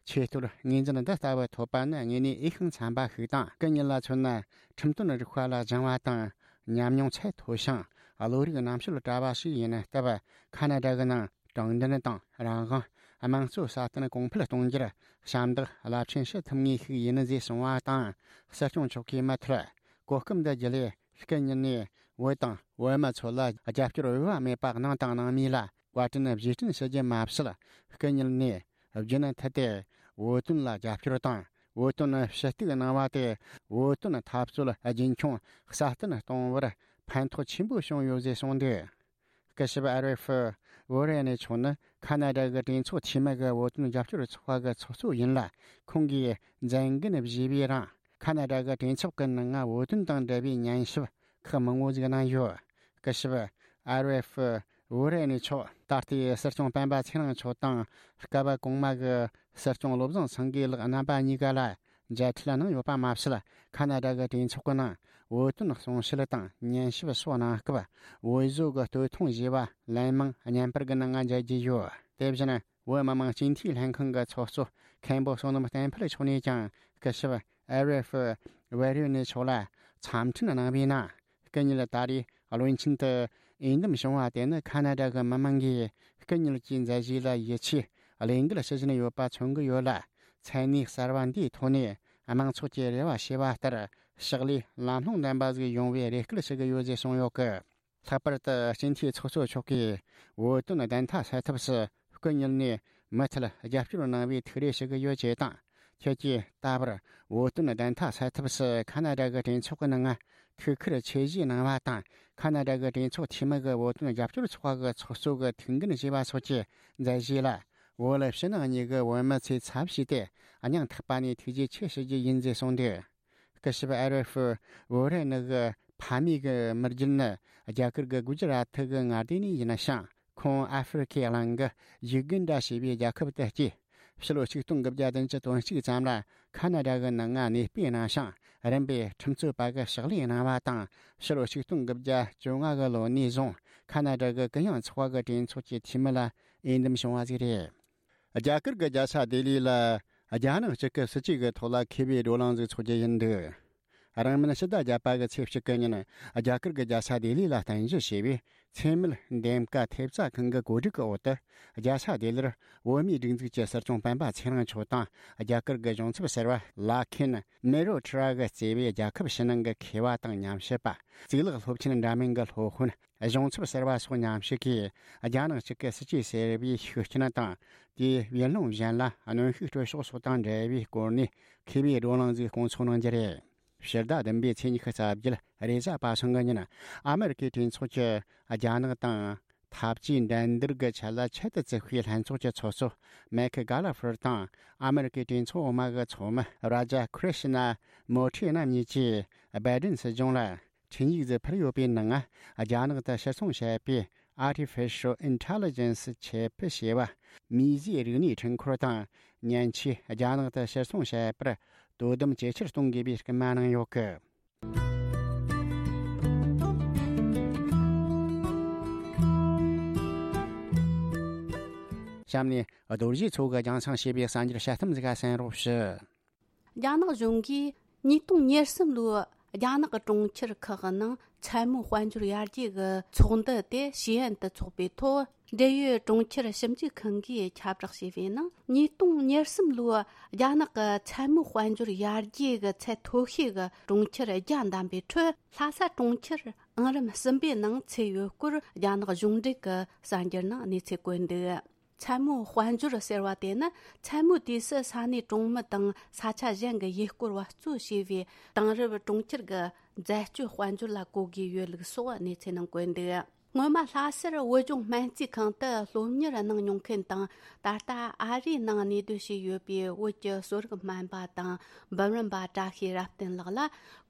ཆེས་མཐོར་ངོས་འཛིན་འདི་ལྟ་བུ་ཐོབ་པ་ནི་དངོས་གནས་འོས་ཤིང་འཚམ་པ་ཞིག་དང་། སྐུ་ཉིད་ལ་མཚོན་ན། ཁྲིམས་དོན་རིག་པ་ལ་སྦྱང་བ་དང་ཉམས་མྱོང་ཚད་མཐོ་ཞིང་བློ་རིག་རྣམ་དཔྱོད་བཀྲ་བ་ཞིག་ཡིན་སྟབས། ཁ་ན་ཌ་གི་ནང་དྲང་བདེན་དང་རང་དབང་། དམངས་གཙོ་སྲ་བརྟན་གོང་འཕེལ་གཏོང་རྒྱུར་ཞབས་འདེགས་རླབས་ཆེན་ཞུ་ཐུབ་ངེས་ཤིག་ཡིན་ཞེས་གསུངས་པ་དང་། སྲིད་སྐྱོང་མཆོག་གིས་མུ་མཐུད་གོ་སྐབས་འདི་བརྒྱུད་ལས། སྐུ་ཉིད་ནས་བོད་དང་བོད་མི་ཚོ་ལ་རྒྱབ་སྐྱོར་འོས་པ་མེད་པ་གནང་དང་གནང་མུས་ལ་བཀའ་དྲིན་རྗེས་དྲན་ཞུ་རྒྱུ་མ་ཟད། སྐུ་ཉིད་ནས་རྒྱུན་མཐུད་དེ་བོད་དོན་ལ་རྒྱབ་སྐྱོར་དང་། བོད་དོན་ཞུ་གཏུག་གནང་བ་དེ་བོད་དོན་འཐབ་རྩོད་རྒྱུན་འཁྱོངས་སྲ་བརྟན་གཏོང་བར་ཕན་ཐོགས་ཆེན་པོ་བྱུང་ཡོད་ཅེས་གསུངས་འདུག་སྐུ་ཞབས་ཨ་རེ་ཧྥུ་ཝུ་རེ་ནི་མཆོག་ནི་ཁ་ན་ཌ་གི་གྲོས་ཚོགས་འཐུས་མི་གི་བོད་དོན་རྒྱབ་སྐྱོར་ཚོགས་པ་གི་ཚོགས་གཙོ་ཡིན་ལ། ཁོང་གིས་མཛད་འགན་བཞེས་པའི་རིང་། ཁ་ན་ཌ་གི་གྲོས་ཚོགས་ཀྱི་ནང་ང་བོད་དོན་དང་འབྲེལ་བའི་ཉན་ཞིབ་ཁག་མང་བོ་ཞིག་གནང་ཡོད། སྐུ་ཞབས་ཨ་རེ་ཧྥུ་ཝུ་རེ་ནི་མཆོག་ད་ལྟའི་སྲིད་སྐྱོང་སྤེན་པ་ཚེ་རིང་མཆོག་དང་། སྐབས་གོང་མ་གི་སྲིད་སྐྱོང་བློ་བཟང་སེང་གེ་ལགས་རྣམ་པ་གཉིས་ཀ་ལ་མཇལ་འཕྲད་གནང་ཡོད་པ་མ་ཟད། ཁ་ན་ཌ་གི་གྲོས་ཚོགས་ཀྱི་ནང་བོད་དོན་གསུང་བཤད་དང་ཉན་ཞིབ་སོགས་གནང་སྐབས། བོད་བཟོ་གི་སྟོད་ཐུང་བཞེས་པ་ལན་མང་བརྙན་པར་གྱི་ནང་ང་མཇལ་རྒྱུ་ཡོད། དེ་བཞིན། བོད་མི་མང་སྤྱི་འཐུས་ལྷན་ཁང་གི་ཚོགས་གཙོ་མཁན་པོ་བསོད་ནམས་བསྟན་འཕེལ་མཆོག་ནས་ཀྱང་སྐུ་ཞབས་ཨེ་རེ་ཧྥུ་ཝེ་རི་ནི་མཆོག་ལ་འཚམས་འཕྲིན་གནང་བའི་ནང་། སྐུ་ཉིད་ད་རེས་བློན་ཆེན་དུ་འོས་འདེམས་བྱུང་བ་དེ་ནི་ཁ་ན་ཌ་གི་མི་མང་གིས་སྐུ་ཉིད་ཀྱི་མཛད་རྗེས་ལ་ཡིད་ཆེས་བློས་འགེལ་ཞུ་བཞིན་ཡོད་པ་མཚོན་གྱི་ཡོད་ལ། མཚན་གནས་གསར་བ་འདིའི་ཐོག་ནས་དམངས་ཚོགས་ཀྱི་རེ་བ་བྱས་པ་ལྟར་ཕྱག་ལས་ལམ་ལྷོང་ལྡན་པ་ཞིག་ཡོང་བའི་རེ་སྐུལ་ཞུ་གི་ཡོད་ཅེས་གསུངས་ཡོད་སྐད། ལྷག་པར་དུ་སྤྱི་འཐུས་ཚོགས་གཙོ་མཆོག་གིས་བོད་དོན་བདེན་མཐའ་གསལ་ཐབས་སུ་སྐུ་ཉིད་ནས་མུ་མཐུད་རྒྱབ་སྐྱོར་གནང་བའི་ཐུགས་རེ་ཞུ་གི་ཡོད་ཅེས་དང་། ཁྱེད་ཀྱིས་ད་བར་བོད་དོན་བདེན་མཐའ་གསལ་ཐབས་སུ་ཁ་ན་ཌ་གི་གྲོས་ཚོགས་ཀྱི་ནང་ཐུགས་ཁུར་ཆེ་བཞེས་གནང་བ་དང་། ཁ་ན་ཌ་གི་གྲོས་ཚོགས་འཐུས་མི་གི་བོད་དོན་རྒྱབ་སྐྱོར་ཚོགས་པ་གི་ཚོགས་གཙོ་གི་ཐུགས་འགན་བཞེས་པ་སོགས་ཀྱི་མཛད་རྗེས་ལ། བོད་ཕྱི་ནང་གཉིས་ཀྱི་བོད་མི་ཚོས་ཚབ་བྱས་ཏེ་སྙིང་ཐག་པ་ནས་ཐུགས་རྗེ་ཆེ་ཞུ་རྒྱུ་ཡིན་ཞེས་གསུངས་འདུག་སྐུ་ཞབས་ཨ་རེ་ཧྥུ་ཝུ་རེ་ནི་གི་ཕ་མེས་ཀྱི་མི་རྒྱུད་ནི་རྒྱ་གར་གྱི་གུ་ཇི་རཱ་ཐི་གི་མངའ་སྡེ་ནས་ཡིན་ཞིང་། ཁོང་ཨ་ཧྥེ་རི་ཁའི་གླིང་གི་ཡུ་གན་ཌ་ཞེས་པའི་རྒྱལ་ཁབ་ཏུ་སྐྱེས། ཕྱི་ལོ་ཆིག་སྟོང་དགུ་བརྒྱ་བདུན་ཅུ་དོན་གཅིག་ཙམ་ལ་ཁ་ན་ཌ་གི་ནང་ང་གནས་སྤོས་གནང་ཞིང་། རིམ་པས་ཁྲིམས་རྩོད་པ་གི་ཕྱག་ལས་གནང་བ་དང་། ཕྱི་ལོ་ཆིག་སྟོང་དགུ་བརྒྱ་བཅོ་ལྔ་གི་ལོ་ནས་བཟུང་ཁ་ན་ཌ་གི་གུ་ཡངས་ཚོགས་པ་གི་གྲོས་ཚོགས་ཀྱི་འཐུས་མི་ལ་འོས་འདེམས་བྱུང་བ་ཞིག་རེད། རྒྱ་གར་གྱི་རྒྱལ་ས་ལྡི་ལི་ལ་རྒྱ་ནག་གཅིག་གི་སྲིད་ཇུས་ཀྱི་ཐོག་ལ་མཁས་པའི་བགྲོ་གླེང་ཞིག་འཚོགས་རྒྱུ་ཡིན་འདུག་རིང་མིན་ཕྱི་ཟླ་བརྒྱད་པ་གི་ཚེས་གཅིག་གི་ཉིན། རྒྱ་གར་གྱི་རྒྱལ་ས་ལྡི་ལི་ལ་རྟེན་གཞི་བྱས་པའི་འཚེ་མེད་འདེམས་ཀ་ཐེབས་རྩ་ཁང་གི་གོ་སྒྲིག་གི་འོག་ཏུ། རྒྱལ་ས་ལྡི་ལིར་བོད་མིའི་སྒྲིག་འཛུགས་ཀྱི་སྲིད་སྐྱོང་སྤེན་པ་ཚེ་རིང་མཆོག་དང་། རྒྱ་གར་གྱི་གཞུང་ཚབ་ཟུར་པ་ལ་ཁེན་མེ་རོ་ཁྲི་ར་གིས་གཙོས་པའི་རྒྱལ་ཁབ་ཕྱི་ནང་གི་མཁས་པ་དང་ཉམས་ཞིབ་པ། གཙུག་ལག་སློབ་ཆེན་འདྲ་མིན་གྱི་སློབ་དཔོན། གཞུང་ཚབ་ཟུར་པ་སོགས་མཉམ་ཞུགས་ཀྱིས། རྒྱ་ནག་གཅིག་གི་སྲིད་ཇུས་ཟེར་བའི་ཤུགས་རྐྱེན་དང་། དེའི་ཡུལ་ལུང་གཞན་ལ་གནོན་ཤུགས་སྤྲོད་ཕྱོགས་སོགས་དང་འབྲེལ་བའི་སྐོར་ནས་མཁས་པའི་བགྲོ་གླེང་ཞིག་སྐོང་ཚོགས་གནང་རྒྱུ་རེད། ཕྱི་ཟླ་བདུན་པའི་ཚེས་ཉི་ཤུ་རྩ་བརྒྱད་རེས་གཟའ་པ་སངས་ཀྱི་ཉིན། ཨ་མེ་རི་ཀའི་གྲོས་ཚོགས་ཀྱི་རྒྱ་ནག་དང་འཐབ་ཇུས་འགྲན་བསྡུར་གྱི་ཆེད་ལ་ཆེད་དུ་བཙུགས་པའི་ལྷན་ཚོགས་ཀྱི་ཚོགས་གཙོ་མེག་གྷ་ལ་ཧྥར་དང་། ཨ་མེ་རི་ཀའི་གྲོས་ཚོགས་འོག་མ་གི་ཚོགས་མི་རཱ་ཇ་ཁྲི་ཤི་ན་མོ་ཁྲི་རྣམ་གཉིས་ཀྱིས་སྦའི་ཏིན་སྲིད་གཞུང་ལ། འཕྲིན་ཡིག་ཟིག་ཕུལ་ཡོད་པའི་ནང་། རྒྱ་ནག་ཏུ་ཕྱིར་ཚོང་བྱས་པའི་Artificial Intelligence ཆེད་ཕུལ་བྱས་པ། མིས་བཟོས་རིག་གནས་འཕྲུལ་འཁོར་དང་། མཉེན་ཆས་རྒྱ་ནག་ཏུ་ཕྱིར་ཚོང་བྱས་པར་དོ་དམ་ཇེ་ཆེར་གཏོང་དགོས་པའི་སྐུལ་མ་གནང་ཡོད་སྐད། གཤམ་ནས་རྡོ་རྗེ་མཚོ་གི་རྒྱང་སྲིང་བྱས་པའི་གསར་འགྱུར་དཔྱད་གཏམ་ཟིག་ག་གསན་རོགས་ཞུ། རྒྱ་ནག་གཞུང་གིས་ཉིས་སྟོང་ཉེར་གསུམ་ལོའི་རྒྱ་ནག་གི་གྲོང་ཁྱེར་ཁག་གི་ནང་མཚན་མོའི་དཔལ་འབྱོར་ཡར་རྒྱས་ཀྱི་ཚོགས་འདུ་དེ་ཞི་ཨན་དུ་འཚོགས་པའི་ཐོག་འབྲེལ་ཡོད་གྲོང་ཁྱེར་ཞིབ་འཇུག་ཁང་གིས་ཁྱབ་བསྒྲགས་བྱས་པའི་ནང་། ཉིས་སྟོང་ཉེར་གསུམ་ལོའི་རྒྱ་ནག་གི་མཚན་མོའི་དཔལ་འབྱོར་ཡར་རྒྱས་ཀྱི་ཚད་མཐོ་ཤོས་ཀྱི་གྲོང་ཁྱེར་བརྒྱ་བདམས་པའི་ཁྲོད། ལྷ་ས་གྲོང་ཁྱེར་ཨང་རིམ་གསུམ་པའི་ནང་ཚུད་ཡོད་སྐོར་རྒྱ་ནག་གཞུང་འབྲེལ་གྱི་གསར་འགྱུར་ནང་གནས་ཚུལ་བཀོད་འདུག་མཚན་མོའི་དཔལ་འབྱོར་ཟེར་བ་དེ་ནི། མཚན་མོའི་དུས་སུ་ས་གནས་གྲོང་མི་དང་ས་ཆ་གཞན་གྱི་ཡུལ་སྐོར་བ་གཙོ་བྱས་པའི་དེང་རབས་གྲོང་ཁྱེར་གྱི་འཛད་སྤྱོད་དཔལ་འབྱོར་ལ་གོ་དགོས་ཡོད་ལུགས་སོགས་གནས་ཚུལ་ནང་བཀོད་འདུག་སྔོན་མ་ལྷ་སར་བོད་ལྗོངས་སྨན་རྩིས་ཁང་དུ་སློབ་གཉེར་གནང་མྱོང་མཁན་དང་། ད་ལྟ་ཨ་རིའི་ནང་གནས་སྡོད་བྱས་ཡོད་པའི་བོད་ཀྱི་གསོ་རིག་སྨན་པ་དང་འབུམ་རམས་པ་བཀྲ་ཤིས་རབ་བརྟན་ལགས་ལ།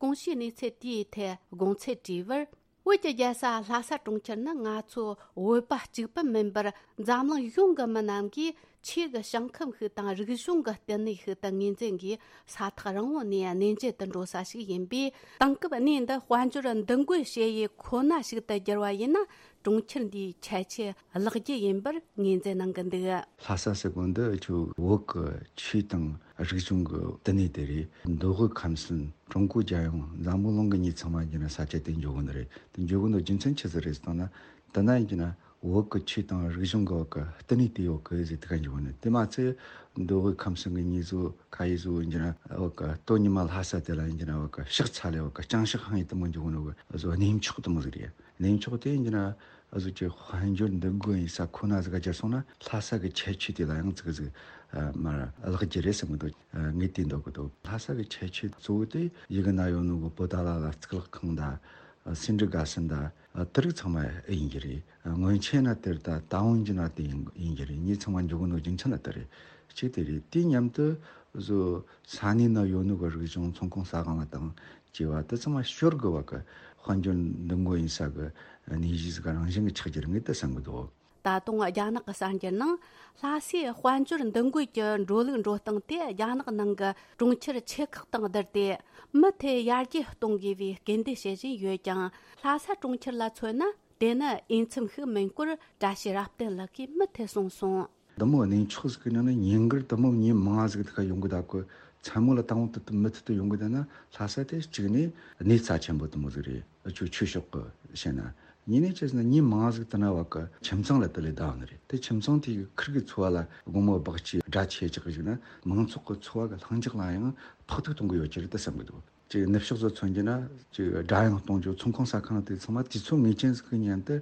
གོང་ཞུས་གནས་ཚུལ་དེའི་ཐད་དགོངས་ཚུལ་དྲིས་པར། བོད་ཀྱི་རྒྱལ་ས་ལྷ་ས་གྲོང་ཁྱེར་ནི་ང་ཚོ་བོད་པ་གཅིག་པུ་མིན་པར། འཛམ་གླིང་གཞུང་གི་མི་རྣམས་ཀྱིས་ཆོས་ཀྱི་ཞིང་ཁམས་ཤིག་དང་རིག་གཞུང་གི་བསྟི་གནས་ཤིག་ཏུ་ངོས་འཛིན་གྱིས། ས་ཐག་རིང་བོ་ནས་གནས་མཇལ་དུ་འགྲོ་ས་ཞིག་ཡིན་པས། དེང་སྐབས་གནས་འདི་དཔལ་འབྱོར་འདུ་འགོད་བྱེད་ཡུལ་ཁོ་ན་ཞིག་ཏུ་བསྒྱུར་བ་ཡིན་ན། གྲོང་ཁྱེར་འདིའི་ཁྱད་ཆོས་བརླག་རྒྱུ་ཡིན་པར་ངོས་འཛིན་གནང་གི་འདུག། ལྷ་ས་ཟེར་གོ་འདི་ཆུ་བོད་ཀྱི་ཆོས་དང་རིག་གཞུང་གི་བསྟི་གནས་དེ་རེད། མདོ་དབུས་ཁམས་གསུམ། ཀྲུང་གོ་རྒྱལ་ཡོངས། འཛམ་བུ་གླིང་གི་མྱི་ཚང་མ་ཡིན་ན་ས་ཆ་དེ་འཇོག་གི་ནི་རེད། དེ་འཇོག་གི་ནི་རྒྱུ་མཚན་ཆི་ཟིག་རེད་ཟེར་ན། དེ་ན་ཡིན་ན་བོད་ཀྱི་ཆོས་དང་རིག་གཞུང་གི་བོད་ཀྱི་བསྟི་གནས་དེ་ཡོད་གི་ཟེར། དེ་ག་འཇོག་གི་ནི། དེ་མ་ཚད་མདོ་དབུས་ཁམས་གསུམ་གྱི་མྱི་ཚོ་ཁ་ཡི་ཚོ་ཡིན་ན་བོད་ཀྱི་སྟོད་ཉི་མ་ལྷ་ས་དེ་ལ་ཡིན་ན་བོད་ཀྱི་ཕྱག་འཚལ་ལེ། བོད་ཀྱི་ལྕང་ཕྱག་ཧང་ཡི་དེ་མོ་འཇོག་གི་ནི་བོད་བཟོ་གནས་མཆོག་དེ་མོ་ཟིག་རེད། གནས་མཆོག་དེ་ཡིན་ན་ཨ་ཟུ་ཅིག་དཔལ་འབྱོར་འདུ་འགོད་ཡིན་ས་ཁོ་ན་ཟིག་ག་སྦྱར་སོང་ན། ལྷ་ས་གི་ཁྱད་ཆོས་དེ་ལ་ཡང་ཙིག་ཟིག་ཨ་མར་བརླག་རྒྱུ་རེད་བསམ་གི་འདུག། ཨ་ངས་དེ་འདོད་གི་འདུག། ལྷ་ས་གི་ཁྱད་ཆོས་གཙོ་བོ་དེ་ཡི་གེ་ན་ཡོད་ནོ་གི་བོད་ད་ལ་ལ་གཙུག་ལག་ཁང་དང་། ཨ་སེ་འབྲས་དགའ་སེན་དང་། ཨ་དེ་རིགས་ཚང་མ་ཡིན་གྱི་རེད། ཨ་སྔོན་ཆད་ན་དེར་ད་ད་འོན་གྱི་ན་དེ་ཡིན་ཡིན་གྱི་རེད། ངས་ཚང་མ་འཇོག་གི་ནོ་རྒྱུ་མཚན་ལ་དེ་རེད། གཅིག་དེ་རེད། དེ་མཉམ་དུ་བཟོ་ས་གནས་ན་ཡོད་ནོ་གི་རིག་གཞུང་། ཚོང་ཁང་ཟ་ཁང་ལ་དང་། སྐྱེ་བ་དེ་ཚང་མ་ཤོར་དགོས་པ་གི་དཔལ་འབྱོར་འདུ་འགོད་ཡིན་ས་གི་གནས་གཞི་ཟིག་རང་བཞིན་གྱི་ཆགས་རྒྱུ་རེད། ངས་དེ་བསམ་གི་འདུག། ད་དུང་རྒྱ་ནག་གི་གསར་འགྱུར་ནང་། ལྷ་སའི་དཔལ་འབྱོར་འདུ་འགོད་ཀྱི་འགྲོ་ལུགས་འགྲོ་སྟངས་དེ་རྒྱ་ནག་ནང་གི་གྲོང་ཁྱེར་ཆེ་ཁག་དང་བསྡུར་ཏེ། མུ་མཐུད་ཡར་རྒྱས་གཏོང་དགོས་པའི་སྐུལ་འདེད་བྱེད་བཞིན་ཡོད་ཀྱང་། ལྷ་ས་གྲོང་ཁྱེར་ལ་མཚོན་ན། དེ་ནི་འོས་འཚམ་ཞིག་མིན་སྐོར་བཀྲ་ཤིས་རབ་བརྟན་ལགས་ཀྱིས་མུ་མཐུད་གསུངས་སོང་། འདི་མོ་གནས་མཆོག་ཟིག་གི་ནང་ནས་ཉིན་དཀར་འདི་མོ་མྱི་མང་ཟིག་དེ་ག་ཡོང་གི་ད་གོ། མཚན་མོ་ལ་དང་པོ་དེ་མུ་མཐུད་དུ་ཡོང་གི་ད་ན། ལྷ་ས་དེ་གཅིག་ནས་གནས་རྩ་ཆེན་པོ་དེ་མོ་ཟིག་རེད། ཨ་ཆོས་ཆོས་ཕྱོགས་གི་བཤད་ན། གཉིས་ནས་ཅི་ཟེར་ན་མྱི་མང་ཟིག་དེ་ན་བ་གི་ཁྱིམ་ཚང་ལ་དེ་ལས་བསྡད་ནི་རེད། དེ་ཁྱིམ་ཚང་དེ་གི་ཁིར་གི་འཚོ་བ་ལ་དགོང་མོ་སྦག་ཅིག་སྒྲ་ཆེ་ཅིག་གི་ཞིག་ན། མང་ཚོགས་གི་འཚོ་བ་གི་ལྷིང་འཇགས་ལ་ཡང་ཕོག་ཐུག་གཏོང་གི་ཡོད་ཀྱི་རེད་དེ་བསམ་གི་འདུག། ཅིག་ནུབ་ཕྱོགས་སུ་མཚོན་རྒྱུ་ན་ཅིག་སྒྲ་དབྱངས་གཏོང་རྒྱུ། ཚོང་ཁང་ཟ་ཁང་དེ་ཚང་མ་དུས་ཚོད་ངེས་ཅན་ཟིག་གི་ཉན་དུ་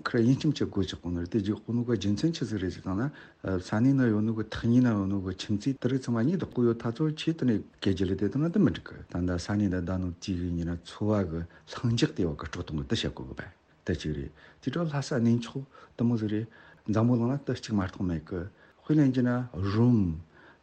ཁིར་དབྱིན་སྐྱིད་ཅིག་སྒོ་ཕྱེ་གོ་ནི་རེད། དེ་རྒྱུ་གོ་ནོ་གི་རྒྱུ་མཚན་ཆི་ཟིག་རེད་ཟེར་བཏང་ན། ས་གནས་ན་ཡོད་ནོ་གི་ཐག་ཉེ་ན་ཡོད་ནོ་གི་ཁྱིམ་མཚེས་དེ་རིགས་ཚང་མ་ཉེ་དུ་ཁོ་ཡོད་ཐ་ཚོ་ཆེ་དུ་ནས་སྐད་ཆ་ལས་དེ་དང་ན་དུ་མི་འགྲིག་གི། ད་ལྟ་ས་གནས་ན་བསྡད་ནོ་དེ་གི་ཉིན་ན་འཚོ་བ་གི་ལྷིང་འཇགས་དེ་བ་གི་སྤྲོ་གཏོང་གི་དུ་བྱེད་དགོས་གི་བས། དེ་གཅིག་རེད། དེ་འཕྲོ་ལྷ་ས་གནས་མཆོག་དུ་མོ་ཟིག་རེད། འཛམ་བུ་གླིང་ན་དུ་གཅིག་མ་གཏོགས་མེད་གི། དཔེ་ལེན་རྒྱུ་ན་རོམ།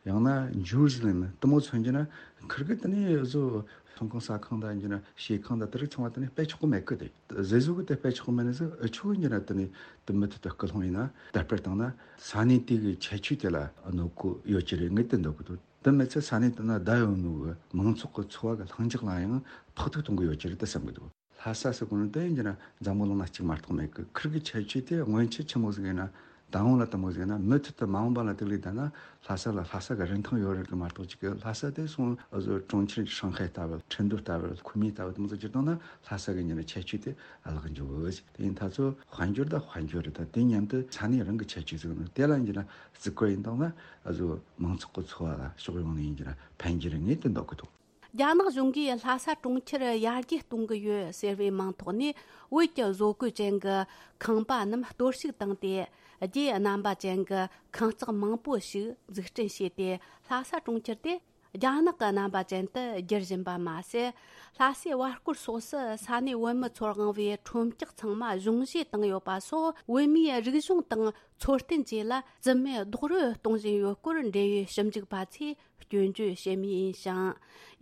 ཡང་ན་ཇུ་རུ་ཟི་ལེམ་དུ་མོ་མཚོན་རྒྱུ་ན། ཁིར་གི་དེ་ནས་བཟོ་ཚོང་ཁང་ཟ་ཁང་དང་རྒྱུ་ན་ཞེ་ཁང་དང་དེ་རིགས་ཚང་མ་དེ་ནས་དཔེ་ཆོག་གི་མེད་གི། དེ་ཟེ་ཟུ་གི་དེ་དཔེ་ཆོག་གི་མེད་ནི་ཟིག་ཨ་ཆོ་རྒྱུ་ན་དེ་ནས་དུ་མུ་མཐུད་དུ་སྐུལ་སློང་ཡིན་ན། དར་སྤེལ་བཏང་ན་ས་གནས་དེ་གི་ཁྱད་ཆོས་དེ་ལ་གནོད་གོ་ཡོད་ཀྱི་རེད། ངས་དེ་འདོད་གི་འདུག། དེ་མི་ཚད་ས་གནས་དེ་ན་བསྡད་ཡོད་ནོ་གི་མང་ཚོགས་གི་འཚོ་བ་གི་ལྷིང་འཇགས་ལ་ཡང་ཕོག་ཐུག་གཏོང་གི་ཡོད་ཀྱི་རེད་དེ་བསམ་གི་འདུག། ལྷ་ས་ཟེར་གོ་ནི་དེ་ཡིན་གྱི་ན་འཛམ་བུ་གླིང་ན་གཅིག་མ་གཏོགས་མེད་གི། ཁིར་གི་ཁྱད་ཆོས་དེ་སྔོན་ཆད་ཆི་མོ་ཟིག་ཡིན་ན། ད་འོང་ལ་དུ་མོ་ཟིག་ཡིན་ན། མུ་མཐུད་དུ་མ་འོངས་པ་ལ་དེ་ལས་ད་ན་ལྷ་ས་ལ་ལྷ་ས་གི་རིན་ཐང་ཡོད་རེད་གི་མ་གཏོགས་ཅིག་གི། ལྷ་ས་དེ་སོང་ཨ་ཟོ་གྲོང་ཁྱེར་ཧྲང་ཧའེ་ལྟ་བུ། ཁྲིན་ཏུ་ལྟ་བུ། ཁུ་མི་ལྟ་བུ་དུ་མོ་ཟིག་གྱུར་བཏང་ན་ལྷ་ས་གི་ཉིན་ཁྱད་ཆོས་དེ་ཨ་ལག་འཇུག་གི། དེ་ཡིན་ད་ཚོ་དཔལ་འབྱོར་ད་དཔལ་འབྱོར་རེད། ད་དེ་མཉམ་དུ་ས་གནས་རང་གི་ཁྱད་ཆོས་ཟིག་ནི་དེ་ལ་ཡིན་གྱི་ན་བརྩི་བཀུར་ཡིན་བཏང་ན། ཨ་ཟོ་མང་ཚོགས་གི་འཚོ་བ་ལ་ཕྱོགས་ཡོངས་ནས་ཡིན་གྱི་ན་ཕན་གྱི་རེད། ངས་དེ་འདོད་གི་འདུག། རྒྱ་ནག་གཞུང་གིས་ལྷ་ས་གྲོང་ཁྱེར་ཡར་རྒྱས་གཏོང་གི་ཡོད་ཟེར་བའི་མིང་ཐོག་ནས། བོད་ཀྱི་བཟོ་བཀོད་ཅན་གྱི་ཁང་པ་རྣམས་གཏོར་བཤིག་བཏང་སྟེ། རྒྱའི་རྣམ་པ་ཅན་གྱི་ཁང་བརྩེགས་མང་པོ་ཞིག་འཛུགས་སྐྲུན་བྱས་ཏེ། ལྷ་ས་གྲོང་ཁྱེར་དེ་རྒྱ་ནག་གི་རྣམ་པ་ཅན་དུ་བསྒྱུར་བཞིན་པ་མ་ཟད། ལྷ་སའི་བར་སྐོར་སོགས་སུ་ས་གནས་བོད་མི་ཚོར་དབང་བའི་ཁྲོམ་སྐྱག་ཚང་མ་གཞུང་བཞེས་བཏང་ཡོད་པ་སོགས། བོད་མིའི་རིག་གཞུང་དང་འཚོ་རྟེན་བཅས་ལ་རྩིས་མེད་རྡོག་རོལ་གཏོང་བཞིན་ཡོད་སྐོར། འབྲེལ་ཡོད་ཞིབ་འཇུག་པ་ཚོས་སྐྱོན་བརྗོད་བྱེད་མུས་ཡིན་ཞིང་།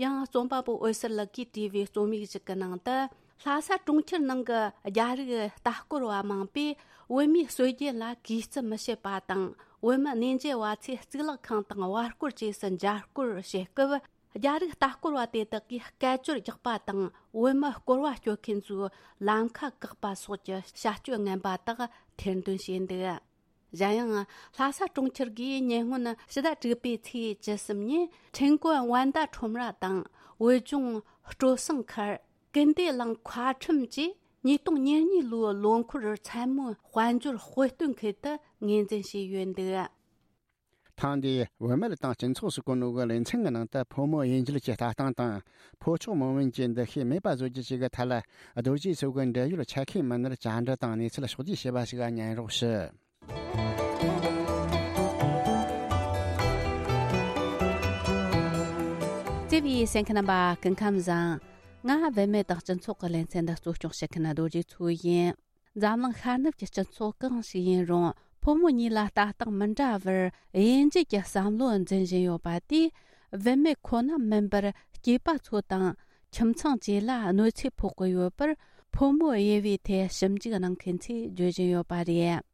ཡང་རྩོམ་པ་པོ་འོད་ཟེར་ལགས་ཀྱིས་བྲིས་པའི་རྩོམ་ཡིག་ཞིག་གི་ནང་དུ། ལྷ་ས་གྲོང་ཁྱེར་ནང་གི་རྒྱ་རིགས་ལྟ་སྐོར་བ་མང་པོས་བོད་མིའི་སྲོལ་རྒྱུན་ལ་གུས་བརྩི་མི་བྱེད་པ་དང་། བོད་མི་གནས་མཇལ་བ་ཚོས་གཙུག་ལག་ཁང་དང་བར་སྐོར་བཅས་སུ་མཇལ་སྐོར་བྱེད་སྐབས། རྒྱ་རིགས་ལྟ་སྐོར་བ་དེ་དག་གིས་སྐད་ཅོར་རྒྱག་པ་དང་། བོད་མི་སྐོར་བ་སྐྱོད་མཁན་ཚོའི་ལམ་ཁ་བཀག་པ་སོགས་ཀྱི་བྱ་སྤྱོད་ངན་པ་དག་ཐེར་འདོན་བྱས་འདུག། གཞན་ཡང་། ལྷ་ས་གྲོང་ཁྱེར་གྱིས་ཉེ་སྔོན་ཕྱི་ཟླ་དྲུག་པའི་ཚེས་བཅུ་གསུམ་ཉིན། ཁྲེང་ཀོན་ཝན་ཏ་ཁྲོམ་ར་དང་། བོད་ལྗོངས་སྤྲོ་གསེང་མཁར། ཀུན་བདེ་གླིང་མཁར་ཁྲོམ་བཅས་ཉིས་སྟོང་ཉེར་གཉིས་ལོའི་ལོ་འཁོར་མཚན་མོའི་དཔལ་འབྱོར་དཔེ་སྟོན་ཁུལ་དུ་ངོས་འཛིན་བྱས་ཡོད་འདུག། ཐེངས་འདིའི་བུད་མེད་དང་སྤྱི་ཚོགས་སུ་བཀོད་ནོ་གི་ལེ་ཚན་གྱི་ནང་དུ། ཕོ་མོ་དབྱེ་འབྱེད་ཀྱི་ལྟ་སྟངས་དང་། ཕོ་མཆོག་མོ་དབྱིན་གྱི་འདུ་ཤེས་མེད་པ་བཟོ་རྒྱུ་བཅས་ཀྱི་ཐད་ལ་རྡོ་རྗེ་འཚོ་གི་འབྲེལ་ཡོད་ཆ་ཤས་མི་སྣར་བཅར་འདྲི་དང་གནས་ཚུལ་ཕྱོགས་བསྡུས་བྱས་པ་ཞིག་ཉན་རོགས་ཞུ། བརྩེ་བའི་གསན་མཁན་རྣམ་པ། སྐུ་ཁམས་བཟང་། ང་བུད་མེད་དང་སྤྱི་ཚོགས་ཀྱི་ལེ་ཚན་འདི་གཙོ་སྐྱོང་བྱེད་མཁན་རྡོ་རྗེ་མཚོ་ཡིན། འཛམ་གླིང་ཤར་ནུབ་ཀྱི་སྤྱི་ཚོགས་གང་ཞིག་ཡིན་རུང་། ཕོ་མོ་གཉིས་ལ་ལྟ་སྟངས་མི་འདྲ་བར་དབྱེ་འབྱེད་ཀྱི་བསམ་བློ་འཛིན་བཞིན་ཡོད་པ་དེས། བུད་མེད་ཁོ་ན་མིན་པར་སྐྱེས་པ་ཚོ་དང་ཁྱིམ་ཚང་བཅས་ལ་གནོད་འཚེ་ཕོག་གི་ཡོད་པར། ཕོ་མོའི་དབྱེ་བའི་ཐད་ཞིབ་འཇུག་གནང་མཁན་ཚོས་བརྗོད་བཞིན་ཡོད་པ་རེད།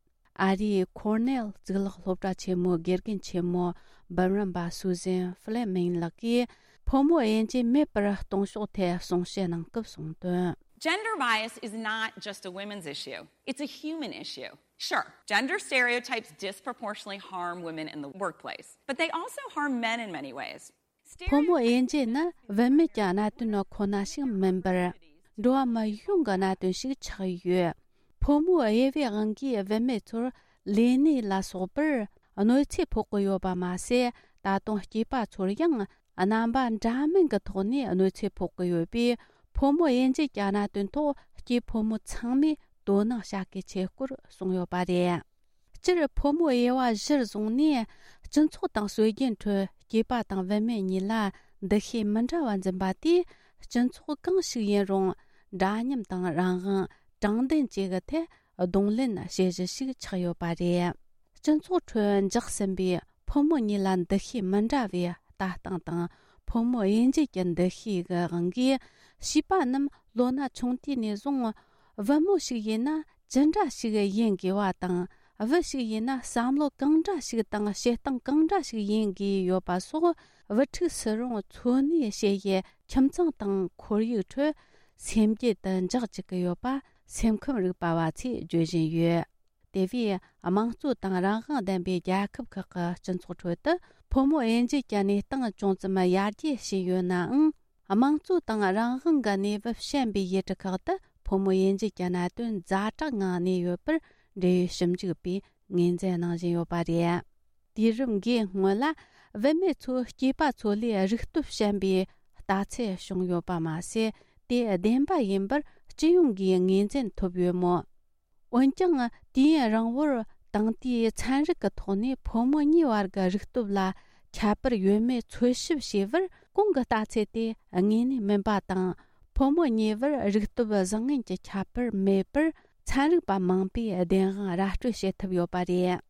ཨ་རིའི་ཁོར་ནེལ་གཙུག་ལག་སློབ་གྲྭ་ཆེན་མོའི་དགེ་རྒན་ཆེན་མོ་འབུམ་རམས་པ་སུ་ཟན་ཧྥི་ལེ་མིང་ལགས་ཀྱིས་ཕོ་མོ་དབྱེ་འབྱེད་མེད་པར་གཏོང་ཕྱོགས་ཐད་གསུང་བཤད་གནང་སྐབས་གསུངས་དོན། Gender bias is not just a women's issue. It's a human issue. Sure, gender stereotypes disproportionately harm women in the workplace, but they also harm men in many ways. ཕོ་མོ་དབྱེ་འབྱེད་ནི་བུད་མེད་ཀྱི་གནད་དོན་ཁོ་ན་ཞིག་མིན་པར། འགྲོ་བ་མི་ཡོངས་ཀྱི་གནད་དོན་ཞིག་ཆགས་ཡོད། ཕོ་མོའི་དབྱེ་བའི་དབང་གིས་བུད་མེད་ཚོར་ལས་གནས་ལ་སོགས་པར་གནོད་འཚེ་ཕོག་གི་ཡོད་པ་མ་ཟད། ད་དུང་སྐྱེས་པ་ཚོར་ཡང་རྣམ་པ་འདྲ་མིན་གྱི་ཐོག་ནས་གནོད་འཚེ་ཕོག་གི་ཡོད་པས། ཕོ་མོ་དབྱེ་འབྱེད་ཀྱི་གནད་དོན་ཐོག་སྐྱེས་ཕོ་མོ་ཚང་མས་དོ་སྣང་བྱ་གལ་ཆེ་སྐོར་གསུངས་ཡོད་པ་རེད། སྤྱིར་ཕོ་མོའི་དབྱེ་བ་གཞིར་བཟུང་ནས་སྤྱི་ཚོགས་དང་སྲོལ་རྒྱུན་ཁྲོད་སྐྱེས་པ་དང་བུད་མེད་གཉིས་ལ་འདུ་ཤེས་མི་འདྲ་བ་འཛིན་པ་དེས། སྤྱི་ཚོགས་གང་ཞིག་ཡིན་རུང་འདྲ་མཉམ་དང་རང་དབང་དྲང་བདེན་བཅས་ཀྱི་ཐད་གདོང་ལེན་བྱེད་གཞི་ཞིག་ཆགས་ཡོད་པ་རེད། སྤྱི་ཚོགས་ཁྲོད་འཇགས་ཟིན་པའི་ཕོ་མོ་གཉིས་ལ་འདུ་ཤེས་མི་འདྲ་བའི་ལྟ་སྟངས་དང་ཕོ་མོ་དབྱེ་འབྱེད་ཀྱི་འདུ་ཤེས་ཀྱི་དབང་གིས། བྱིས་པ་རྣམས་ལོ་ན་ཆུང་དུས་ནས་བཟུང་བུ་མོ་ཞིག་ཡིན་ན་ཅི་འདྲ་ཞིག་ཡིན་དགོས་པ་དང་། བུ་ཞིག་ཡིན་ན་བསམ་བློ་གང་འདྲ་ཞིག་དང་བྱེད་སྟངས་གང་འདྲ་ཞིག་ཡིན་དགོས་ཡོད་པ་སོགས། བུ་ཕྲུག་སུ་རུང་འཚོ་གནས་བྱེད་ཡུལ་ཁྱིམ་ཚང་དང་ཁོར་ཡུག་ཁྲོད་སེམས་རྒྱུད་དུ་འཇགས་བཅུག་གི་ཡོད་པ་སེམས་ཁམས་རིག་པ་བ་ཚོས་བརྗོད་བཞིན་ཡོད། དེ་བས་དམངས་གཙོ་དང་རང་དབང་ལྡན་པའི་རྒྱལ་ཁབ་ཁག་གི་སྤྱི་ཚོགས་ཁྲོད་དུ་ཕོ་མོ་དབྱེ་འབྱེད་ཀྱི་གནས་སྟངས་ཅུང་ཙམ་ཡར་རྒྱས་ཕྱིན་ཡོད་ནའང་། དམངས་གཙོ་དང་རང་དབང་གི་གནས་བབ་ཞན་པའི་ཡུལ་གྲུ་ཁག་ཏུ་ཕོ་མོ་དབྱེ་འབྱེད་ཀྱི་གནད་དོན་ཛ་དྲག་ངང་གནས་ཡོད་པར། འབྲེལ་ཡོད་ཞིབ་འཇུག་པས་ངོས་འཛིན་གནང་བཞིན་ཡོད་པ་རེད། དུས་རབས་འགའི་སྔོན་ལ་བུད་མེད་ཚོ་སྐྱེས་པ་ཚོ་ལས་རིག་སྟོབས་ཞན་པའི་ལྟ་ཚུལ་བྱུང་ཡོད་པ་མ་ཟད། དེ་བདེན་པ་ཡིན་པར་སྤྱི་ཡོངས་ཀྱིས་ངོས་འཛིན་ཐུབ་ཡོད་མོད། འོན་ཀྱང་། དུས་ཡུན་རིང་བོར་དེང་དུས་ཚན་རིག་གི་ཐོག་ནས་ཕོ་མོ་གཉིས་བར་གྱི་རིག་སྟོབས་ལ་ཁྱད་པར་ཡོད་མེད་འཚོལ་ཞིབ་བྱས་པར། གོང་གི་ལྟ་ཚུལ་དེ་དངོས་གནས་མིན་པ་དང་། ཕོ་མོ་གཉིས་བར་རིག་སྟོབས་བཟང་ངན་གྱི་ཁྱད་པར་མེད་པར། ཚན་རིག་པ་མང་པོས་བདེན་དཔང་ར་སྤྲོད་བྱེད་ཐུབ་ཡོད་པ་རེད།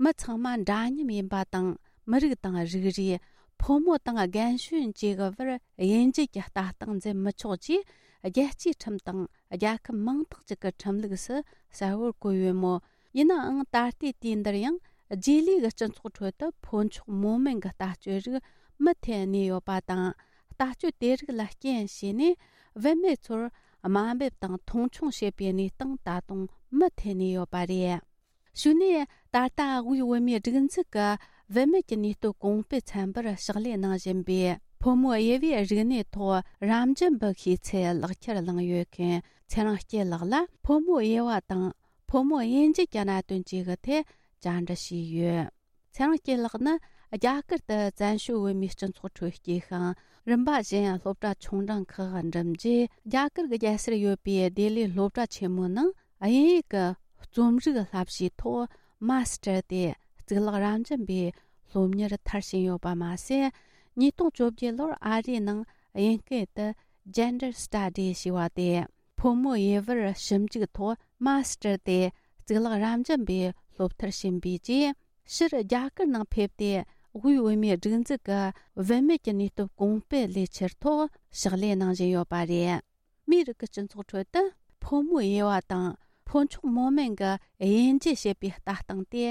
མི་ཚང་མ་འདྲ་མཉམ་ཡིན་པ་དང་། མི་རིགས་དང་རིགས་རུས། ཕོ་མོ་དང་རྒན་གཞོན་བཅས་ཀྱི་བར་དབྱེ་འབྱེད་ཀྱི་ལྟ་སྟངས་འཛིན་མི་ཆོག་ཅེས་རྒྱལ་སྤྱིའི་ཁྲིམས་དང་རྒྱལ་ཁབ་མང་དག་ཅིག་གི་ཁྲིམས་ལུགས་སུ་གསལ་བོར་བཀོད་ཡོད་མོད། ཡིན་ནའང་། ད་ལྟའི་དུས་འདིར་ཡང་རྗེས་ལུས་ཀྱི་སྤྱི་ཚོགས་ཁྲོད་དུ་ཕོ་མཆོག་མོ་དམན་གྱི་ལྟ་སྤྱོད་རིགས་མུ་མཐུད་གནས་ཡོད་པ་དང་། ལྟ་སྤྱོད་དེ་རིགས་ལ་རྐྱེན་བྱས་ནས། བུད་མེད་ཚོར་དམའ་འབེབས་དང་མཐོང་ཆུང་བྱེད་པའི་གནས་སྟངས་ད་དུང་མུ་མཐུད་གནས་ཡོད་པ་རེད། གཞུག་ནས། ད་ལྟ་དབུས་བོད་མིའི་སྒྲིག་འཛུགས་ཀྱི་བུད་མེད་ཀྱི་ནུས་སྟོབས་གོང་སྤེལ་ཚན་པར་ཕྱག་ལས་གནང་བཞིན་པའི་ཕོ་མོའི་དབྱེ་བའི་རིག་གནས་ཐོག་རབ་འབྱམས་པའི་ཤེས་ཚད་ལག་ཁྱེར་བླངས་ཡོད་མཁན་ཚེ་རིང་སྐྱིད་ལགས་ལ། ཕོ་མོའི་དབྱེ་བ་དང་ཕོ་མོ་དབྱེ་འབྱེད་ཀྱི་གནད་དོན་བཅས་ཀྱི་ཐད་བཅར་འདྲི་བྱས་ཡོད། ཚེ་རིང་སྐྱིད་ལགས་ནི་རྒྱ་གར་དུ་བཙན་བྱོལ་བོད་མིའི་སྤྱི་ཚོགས་ཁྲོད་སྐྱེས་ཤིང་། རིམ་པ་བཞིན་སློབ་གྲྭ་ཆུང་འབྲིང་ཁག་འགྲིམས་རྗེས། རྒྱ་གར་གྱི་རྒྱལ་སར་ཡོད་པའི་ལྡི་ལིའི་སློབ་གྲྭ་ཆེན་མོའི་ནང་དབྱིན་ཡིག་གི་རྩོམ་རིག་བསླབ་གཞིའི་ཐོག་མ་སི་ཊར་ཏེ་གཙུག་ལག་རབ་འབྱམས་པའི་སློབ་གཉེར་མཐར་ཕྱིན་ཡོད་པ་མ་ཟད། ཉིས་སྟོང་བཅོ་བརྒྱད་ལོར་ཨ་རིའི་ནང་དབྱིན་སྐད་དུ་Gender Studies ཞེས་པ་སྟེ། ཕོ་མོའི་དབྱེ་བར་ཞིབ་འཇུག་ཐོག་མ་སི་ཊར་ཏེ་གཙུག་ལག་རབ་འབྱམས་པའི་སློབ་མཐར་ཕྱིན་པའི་རྗེས། ཕྱིར་རྒྱ་གར་ནང་ཕེབས་ཏེ། དབུས་བོད་མིའི་སྒྲིག་འཛུགས་ཀྱི་བུད་མེད་ཀྱི་ནུས་སྟོབས་གོང་སྤེལ་ལས་འཆར་ཐོག་ཕྱག་ལས་གནང་བཞིན་ཡོད་པ་རེད། མིའི་རིགས་ཀྱི་སྤྱི་ཚོགས་ཁྲོད་དུ་ཕོ་མོའི་དབྱེ་བ་དང་ཕོ་མཆོག་མོ་དམན་གྱི་དབྱེ་འབྱེད་བྱེད་པའི་ལྟ་སྟངས་དེ་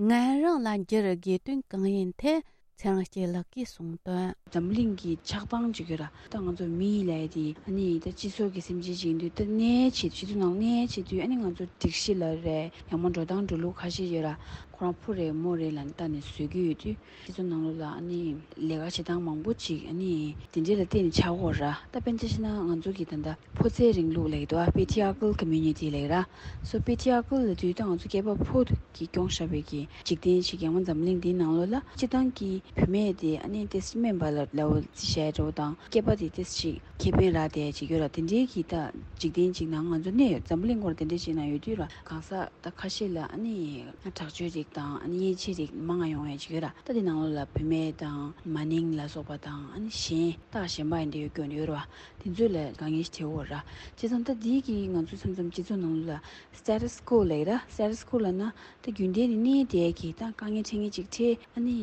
ངན་རང་ལ་འགྱུར་དགོས་དོན་གང་ཡིན་ཐད་ཚེ་རིང་སྐྱིད་ལགས་ཀྱིས་གསུངས་དོན། འཛམ་གླིང་གི་ཆགས་སྟངས་ཅིག་ཡོད་ར། ད་ང་ཚོ་མི་ལབ་ཡ་དེ་ཨ་ནི་ད་སྤྱི་ཚོགས་ཀྱི་སེམས་ཅན་ཅིག་ཡིན་དུས། ད་གནས་བྱེད་སྤྱི་ཚོགས་ནང་གནས་བྱེད་དུས། ཨ་ནི་ང་ཚོ་སྒྲིག་གཞི་ལ་རེད། ཡང་མོ་འགྲོ་སྟངས་འགྲོ་ལུགས་ཁ་ཤས་ཡོད་ར། ཁོ་རང་ཕོ་རེད་མོ་རེད་ལབ་ནས་བལྟས་ནས་བཟོ་གི་ཡོད་དུས། སྤྱི་ཚོགས་ནང་ལོགས་ལ་ཨ་ནི་ལས་ཀ་བྱེད་སྟངས་མང་པོ་ཅིག་ཨ་ནི་དེ་འདྲས་ལ་བརྟེན་ནས་ཆགས་ཀྱི་ཡོད་ར། ད་དཔེར་ན་ཆ་བཞག་ན་ང་ཚོ་གི་ད་ལྟ་ཕོ་རྩལ་རིང་ལུགས་ལབ་ཀྱི་འདུག་ཨ། Patriarchal community ལབ་ཀྱི་ར། So patriarchal ལབ་དུས་ད་ང་ཚོ་སྐྱེས་པ་ཕོ་གིས་སྐྱོང་བཞག་པའི་གི་འཇིག་རྟེན་ཞིག་ཡང་མ་འཛམ་གླིང་འདིའི་ནང་ལོགས་ལ་སྤྱིར་བཏང་གི་བུད་མེད་དེ་ཨ་ནི་ཏོག་ཙམ་དམན་པ་ལ་ལབ་ཙམ་བྱས་འདྲ་བོ་དང་། སྐྱེས་པ་དེ་ཏོག་ཙམ་ཁེ་ཕན་རག་བསྡད་ཅིག་ཡོད་ར། དེ་འདྲའི་གི་ད་འཇིག་རྟེན་ཅིག་ནང་ང་ཚོ་གནས་ཡོད། འཛམ་གླིང་སྐོར་དེ་འདྲའི་ཅིག་ནང་ཡོད་དུས་ར། གང་ཟག་ད་ཁ་ཤས་ལ་ཨ་ནི་དྲག་སྤྱོད་ཅིག་ དང་ཨ་ནི་ཡན་ཆད་རིགས་མང་ང་ཡོང་ཡ་ཅིག་ཡོད་ར། ད་དེ་ནང་ལོགས་ལ་བུད་མེད་དང་མ་ནིང་ལ་སོགས་པ་དང་ཨ་ནི་གཞན་རྟགས་གཞན་པ་ཡིན་དེ་ཡོད་སྐྱོན་ཡོད་ར། དེ་ཚོ་ལ་དཀའ་ངལ་ཞིག་འཕྲད་ཡོད་ར། བྱས་ཙང་ད་དེའི་གི་ང་ཚོ་མཚམས་མཚམས་སྤྱི་ཚོགས་ནང་ལོགས་ལ་status quo ལབ་ཡ་ར། status quo ལབ་ན་ད་རྒྱུན་ལྡན་ནས་གནས་བསྡད་ཀྱི་ད་དཀའ་ངལ་འཕྲད་མཁན་ཅིག་འཕྲད། ཨ་ནི་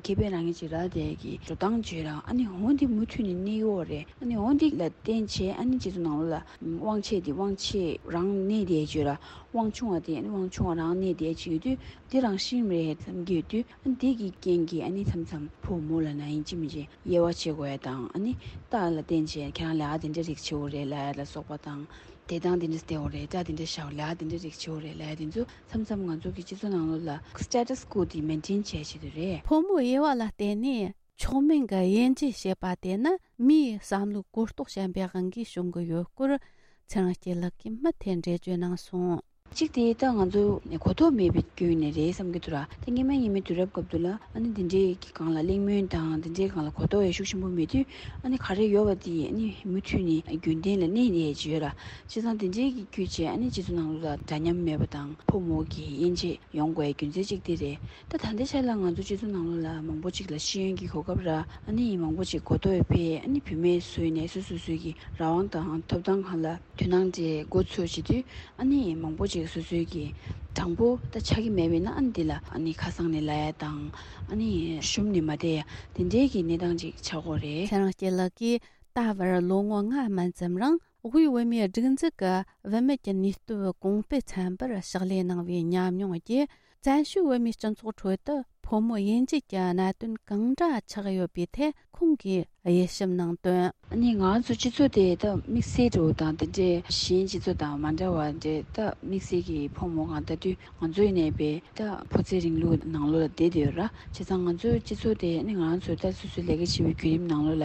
ཁེ་ཕན་རག་མཁན་ཅིག་རག་བསྡད་ཀྱི་འགྲོ་སྟངས་བྱོས་ར། ཨ་ནི་འོ་འདི་མུ་མཐུད་ནས་གནས་ཡོད་རེད། ཨ་ནི་འོ་འདི་ལ་བརྟེན་བྱས་ཨ་ནི་སྤྱི་ཚོགས་ནང་ལོགས་ལ་དབང་ཆེ་དེ་དབང་ཆེ་རང་གནས་བསྡད་བྱོས་ར། དབང་ཆུང་བ་དེ་ཨ་ནི་དབང་ཆུང་བ་རང་གནས་བསྡད་བྱས་ཡོད་དུས། འདི་རང་བཞིན་རེད་བསམ་གྱི་ཡོད་དུས། ཨ་ནི་འདི་གི་རྐྱེན་གྱིས་ཨ་ནི་མཚམས་མཚམས་ཕོ་མོ་ལབ་ན་ཡིན་གཅིག་མིན་གཅིག་དབྱེ་བ་ཕྱེ་དགོས་ཡ་དང་། ཨ་ནི་རྟགས་ལ་བརྟེན་བྱས་ཁྱེད་རང་ལས་ཀ་དེ་འདྲ་རིགས་བྱེད་དགོས་རེད་ལབ་ཡ་ལ་སོགས་པ་དང་། བདེ་ཐང་དེ་འདྲ་བསྡད་དགོས་རེད། སྒྲ་དེ་འདྲ་བཞག་ལབ་ཡ་དེ་འདྲ་རིགས་བྱེད་དགོས་རེད་ལབ་ཡ་དེ་ཚོ་མཚམས་མཚམས་ང་ཚོ་གི་སྤྱི་ཚོགས་ནང་ལོགས་ལ་status quo དེ་maintain བྱེད་བྱེད་དུ་རེད། ཕོ་མོ་དབྱེ་བ་ལ་བརྟེན་ནས་མཆོག་དམན་གྱི་དབྱེ་འབྱེད་བྱེད་པ་དེ་ནི་མིའི་བསམ་བློའི་གོ་རྟོགས་ཞན་པའི་དབང་གིས་བྱུང་གི་ཡོད་སྐོར་ཚེ་རིང་སྐྱིད་ལགས་ཀྱིས་མུ་མཐུད་འགྲེལ་བརྗོད་གནང་སོང་། གཅིག་དེ་ད་ང་ཚོ་གོ་རྟོགས་མེད་པའི་སྐྱོན་ནས་རེད་བསམ་གྱི་འདུག་ར། ད་སྔོན་མ་སྔོན་མའི་དུས་རབས་སྐབས་དུས་ལ་ཨ་ནི་འདི་འདྲའི་གི་སྒང་ལ་གླེང་མོལ་དང་འདི་འདྲའི་སྒང་ལ་གོ་རྟོགས་ཡང་ཤུགས་ཆེན་པོ་མེད་དུས། ཨ་ནི་ག་རེ་ཡོད་པ་དེ་ཨ་ནི་མུ་མཐུད་ནས་རྒྱུན་ལྡན་ལ་གནས་བསྡད་ཀྱི་ཡོད་ར། བྱས་ཙང་འདི་འདྲའི་གི་བརྒྱུད་བྱས་ཨ་ནི་སྤྱི་ཚོགས་ནང་ལོགས་ལ་འདྲ་མཉམ་མེད་པ་དང་ཕོ་མོ་གི་དབྱེ་འབྱེད་ཡོང་དགོས་རྒྱུ་མཚན་གཅིག་དེ་རེད། ད་ད་ལྟའི་ཆ་ལ་ང་ཚོ་སྤྱི་ཚོགས་ནང་ལོགས་ལ་མང་པོ་ཅིག་ལ་ཤེས་ཡོན་གྱི་གོ་སྐབས་ར། ཨ་ནི་མང་པོ་ཅིག་གོ་རྟོགས་ཡོད་པས། ཨ་ནི་བུད་མེད་ཚོ་ནས་སོ་སོ་སོའི་གི་རང་དབང་དང་ཐོབ་ཐང་སྒང་ལ་དོ་སྣང་དེ་འགོ་ཚུགས་བྱེད་དུས། ཨ་ནི་མང་པོ་ཅིག་སོ་སོའི་གི་དྲང་པོ་ད་ཆགས་ཀྱི་མེད་པས་ན། ཨ་ནི་འདི་ལ་ཨ་ནི་ཁ་སང་ནས་ལབ་ཡ་དང་། ཨ་ནི་ཤུམ་ནས་མ་བསྡད་ཡ་དེ་འདྲའི་གི་གནས་སྟངས་ཅིག་ཆགས་ཀྱི་ཡོད་རེད། ཚེ་རིང་སྐྱིད་ལགས་ཀྱིས་ད་བར་ལོ་ངོ་ལྔ་མན་ཙམ་རིང་དབུས་བོད་མིའི་སྒྲིག་འཛུགས་ཀྱི་བུད་མེད་ཀྱི་ནུས་སྟོབས་གོང་སྤེལ་ཚན་པར་ཕྱག་ལས་གནང་བའི་ཉམས་མྱོང་བརྒྱུད། བཙན་བྱོལ་བོད་མིའི་སྤྱི་ཚོགས་ཁྲོད་དུ་ཕོ་མོ་དབྱེ་འབྱེད་ཀྱི་གནད་དོན་གང་འདྲ་ཆགས་ཡོད་པའི་ཐད་ཁོང་གིས་དབྱེ་ཞིབ་གནང་དོན། ཨ་ནི་ང་ཚོ་སྤྱི་ཚོགས་དེ་ད་དམིགས་བསལ་འདྲ་བོ་དང་དེ་འདྲའི་གཞན་སྤྱི་ཚོགས་དང་མ་འདྲ་བ་འདྲ། ད་དམིགས་བསལ་གྱི་ཕོ་མོ་སྒང་ལྟ་དུས་ང་ཚོ་ཡིན་ནའི་བས་ད་ཕོ་རྩལ་རིང་ལུགས་ནང་ལོགས་ལ་བསྡད་བསྡད་ཡོད་ར། བྱས་ཙང་ང་ཚོའི་སྤྱི་ཚོགས་དེ་ཨ་ནི་ང་རང་ཚོའི་ད་སོ་སོའི་ལས་ཀ་བྱེད་པའི་བརྒྱུད་རིམ་ནང་ལོགས་ལ་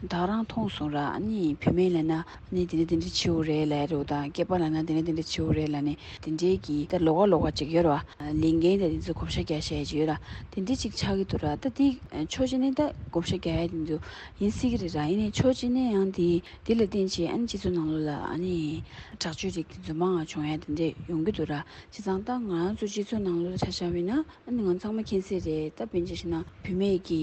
ད་ག་རང་མཐོང་སོང་ར། ཨ་ནི་བུད་མེད་ལབ་ན་ཨ་ནི་དེ་འདྲ་དེ་འདྲ་བྱེད་དགོས་རེད་ལབ་ཡ་འདྲ་བོ་དང་། སྐྱེས་པ་ལབ་ན་དེ་འདྲ་དེ་འདྲ་བྱེད་དགོས་རེད་ལབ་ནས་དེ་འདྲའི་གི་ད་ལོགས་ཀ་ལོགས་ཀ་ཅིག་ཡོད་ར། ལས་འགན་དང་དེ་ཚོ་བགོ་བཤའ་རྒྱག་བྱ་ཡ་ཅིག་ཡོད་ར། དེ་འདྲ་ཅིག་ཆགས་ཀྱི་འདུག་ར། ད་དེ་ཕྱོགས་གཅིག་ནས་ད་བགོ་བཤའ་རྒྱག་ཡ་དེ་ཚོ་ཡིན་སྲིད་ཀྱི་རེད་ར། ཡིན་ནའི་ཕྱོགས་གཅིག་ནས་ཡང་དེ་དེ་ལ་བརྟེན་བྱས་ཨ་ནི་སྤྱི་ཚོགས་ནང་ལོགས་ལ་ཨ་ནི་དྲག་སྤྱོད་རིགས་དེ་ཚོ་མང་བ་བྱུང་ཡ་དེ་འདྲ་ཡོང་གི་འདུག་ར། བྱས་ཙང་ད་ང་རང་ཚོ་སྤྱི་ཚོགས་ནང་ལོགས་ལ་ཆ་བཞག་པ་ཡིན་ན། ཨ་ནི་ང་ཚང་མ་མཁྱེན་གསལ་རེད། ད་དཔེར་ན་ཆ་བཞག་ན་བུད་མེད་ཀྱི་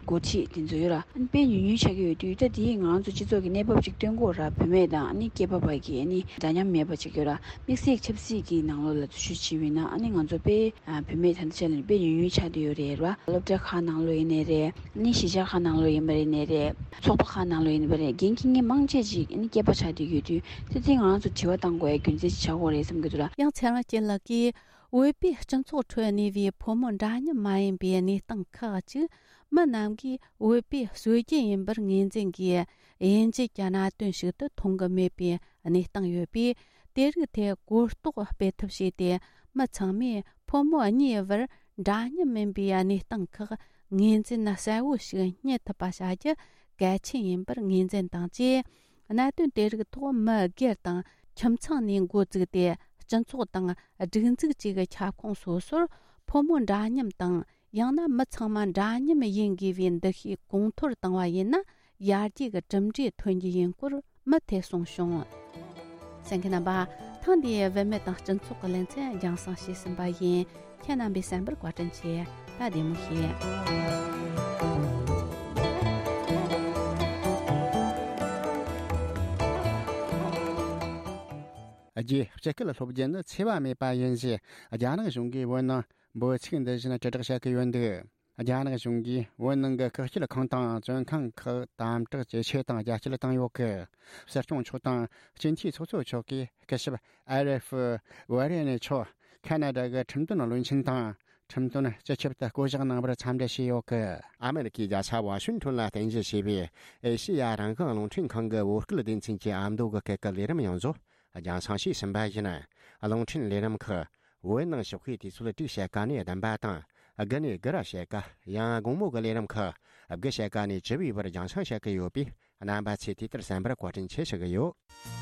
འགོ་ཁྲིད་དེ་ཚོ་ཡོད་ར། ཨ་ནི་དཔེ་ཉུང་ཉུང་ཆགས་ཀྱི་ཡོད་དུས། ད་དེ་ང་རང་ཚོ་སྤྱི་ཚོགས་ཀྱི་གནས་བབ་ཅིག་སྟོན་དགོས་ར། བུད་མེད་དང་ཨ་ནི་སྐྱེས་པ་བར་གྱི་ཨ་ནི་འདྲ་མཉམ་མེད་པ་ཅིག་ཡོད་ར། དམིགས་བསལ་ཆབ་སྲིད་ཀྱི་ནང་ལོགས་ལ་འཛུལ་ཞུགས་བྱས་པ་ཡིན་ན་ཨ་ནི་ང་ཚོ་དཔེ་ཨ་བུད་མེད་ད་ལྟའི་ཆ་ལ་དཔེ་ཉུང་ཉུང་ཆགས་བསྡད་ཡོད་རེད་ར། སློབ་གྲྭ་ཁག་ནང་ལོགས་ཡིན་ནའི་རེད། ཨ་ནི་གཞིས་ཆགས་ཁག་ནང་ལོགས་ཡིན་པ་ཡིན་ནའི་རེད། ཚོགས་པ་ཁག་ནང་ལོགས་ཡིན་པ་རེད། འགན་འཁྱེར་མཁན་མང་ཆེ་ཅིག་ཨ་ནི་སྐྱེས་པ་ཆགས་བསྡད་ཡོད་དུས། དེ་དེ་ང་རང་ཚོ་དྲི་བ་བཏང་དགོས་ཡ་རྒྱུ་མཚན་ཅིག་ཆགས་ཀྱི་ཡོད་རེད་བསམ་གྱི་འདུག་ར། ཡང་ཚེ་རིང་སྐྱིད་ལགས་ཀྱིས། བོད་པའི་སྤྱི་ཚོགས་ཁྲོད་གནས་པའི་ཕོ་མོ་འདྲ་མཉམ་མ་ཡིན་པའི་གནས་སྟངས་ཁག་ཅིག་མི་རྣམས་ཀྱིས་བོད་པའི་སྲོལ་རྒྱུན་ཡིན་པར་ངོས་འཛིན་གྱིས་དབྱེ་འབྱེད་ཀྱི་གནད་དོན་ཞིག་ཏུ་མཐོང་གི་མེད་པའི་གནས་སྟངས་ཡོད་པས། དེ་རིགས་ཐད་གོ་རྟོགས་སྤེལ་ཐབས་བྱས་ཏེ། མི་ཚང་མས་ཕོ་མོ་གཉིས་བར་འདྲ་མཉམ་མིན་པའི་གནས་སྟངས་ཁག་ངོས་འཛིན་གསལ་བོ་ཞིག་རྙེད་ཐུབ་པ་བྱ་རྒྱུ་གལ་ཆེན་ཡིན་པར་ངོས་འཛིན་དང་བཅས། གནད་དོན་དེ་རིགས་ཐོག་མི་སྒེར་དང་ཁྱིམ་ཚང་ནས་འགོ་བཙུགས་ཏེ། སྤྱི་ཚོགས་དང་སྒྲིག་འཛུགས་བཅས་ཀྱི་ཁྱབ་ཁོངས་སོ་སོར་ཕོ་མོ་འདྲ་མཉམ་དང་། ཡང་ན་མི་ཚང་མ་འདྲ་མཉམ་ཡིན་དགོས་པའི་འདུ་ཤེས་གོང་མཐོར་བཏང་བ་ཡིན་ན། ཡར་རྒྱས་ཀྱི་གྲུབ་འབྲས་ཐོན་རྒྱུ་ཡིན་སྐོར་མུ་མཐུད་གསུངས་བྱུང་། གསན་མཁན་རྣམ་པ། ཐེངས་འདིའི་བུད་མེད་དང་སྤྱི་ཚོགས་ཀྱི་ལེ་ཚན་རྒྱང་སྲིང་ཞུས་ཟིན་པ་ཡིན། ཁྱེད་རྣམ་པས་གསན་པར་བཀའ་དྲིན་ཆེ། ད་བདེ་མོ་བྱོས། རྒྱའི་སྤྱི་སྐད་སློབ་སྦྱོང་ནི་འཚེ་བ་མེད་པ་ཡིན་ཞེས་རྒྱ་ནག་གཞུང་གིས་བོད་ནང་འབོད་ཚིག་འདི་བཞིན་དྲིལ་བསྒྲགས་བྱེད་ཀྱི་ཡོད་འདུག་རྒྱ་ནག་གཞུང་གིས་བོད་ནང་གི་བཀག་སྐྱིལ་ཁང་དང་བཙོན་ཁང་ཁག་དམ་དྲག་ཇེ་ཆེ་དང་རྒྱ་སྐྱེད་བཏང་ཡོད་སྐད། སྲིད་སྐྱོང་མཆོག་དང་སྤྱི་འཐུས་ཚོགས་གཙོ་མཆོག་གིས་སྐུ་ཞབས་ཨ་རེ་ཧྥི་ཝེ་རེ་ནི་མཆོག་ཁ་ན་ཌ་གི་ཁྲིམས་དོན་བློན་ཆེན་དང་། ཁྲིམས་དོན་སྤྱི་ཁྱབ་ཏུ་བསྐོ་གཞག་གནང་བར་འཚམས་འདྲི་བྱས་ཡོད་སྐད། ཨ་མེ་རི་ཁའི་རྒྱལ་ས་ཝ་ཤིང་ཊོན་ལ་རྟེན་གཞི་བྱས་པའི་ཨེ་ཤེ་ཡ་རང་དབང་རླུང་འཕྲིན་ཁང་གི་བོད་སྐད་སྡེ་ཚན་གྱི་ཨ་མདོ་གི་སྐད་ཀྱི་ལས་རིམ་ཡོངས་རྫོགས་རྒྱང་སྲིང་བྱས་ཟིན་པ་ཡིན། རླུང་འཕྲིན་ལས་རིམ་ཁག་བོད་ནང་ཞོགས་ཀའི་དུས་ཚོད་དྲུག་ཕྱེད་ཀ་ནས་བདུན་པ་དང་། དགུ་ནས་དགུ་ར་ཕྱེད་ཀ། ཡང་དགོང་མོ་གི་ལས་རིམ་ཁག་དགུ་ཕྱེད་ཀ་ནས་བཅུ་པའི་བར་རྒྱང་སྲིང་བྱེད་ཀྱི་ཡོད་པས། རྣམ་པ་ཚོས་དུས་ལྟར་གསན་པར་བཀའ་དྲིན་ཆེ་ཞུ་གི་ཡོད།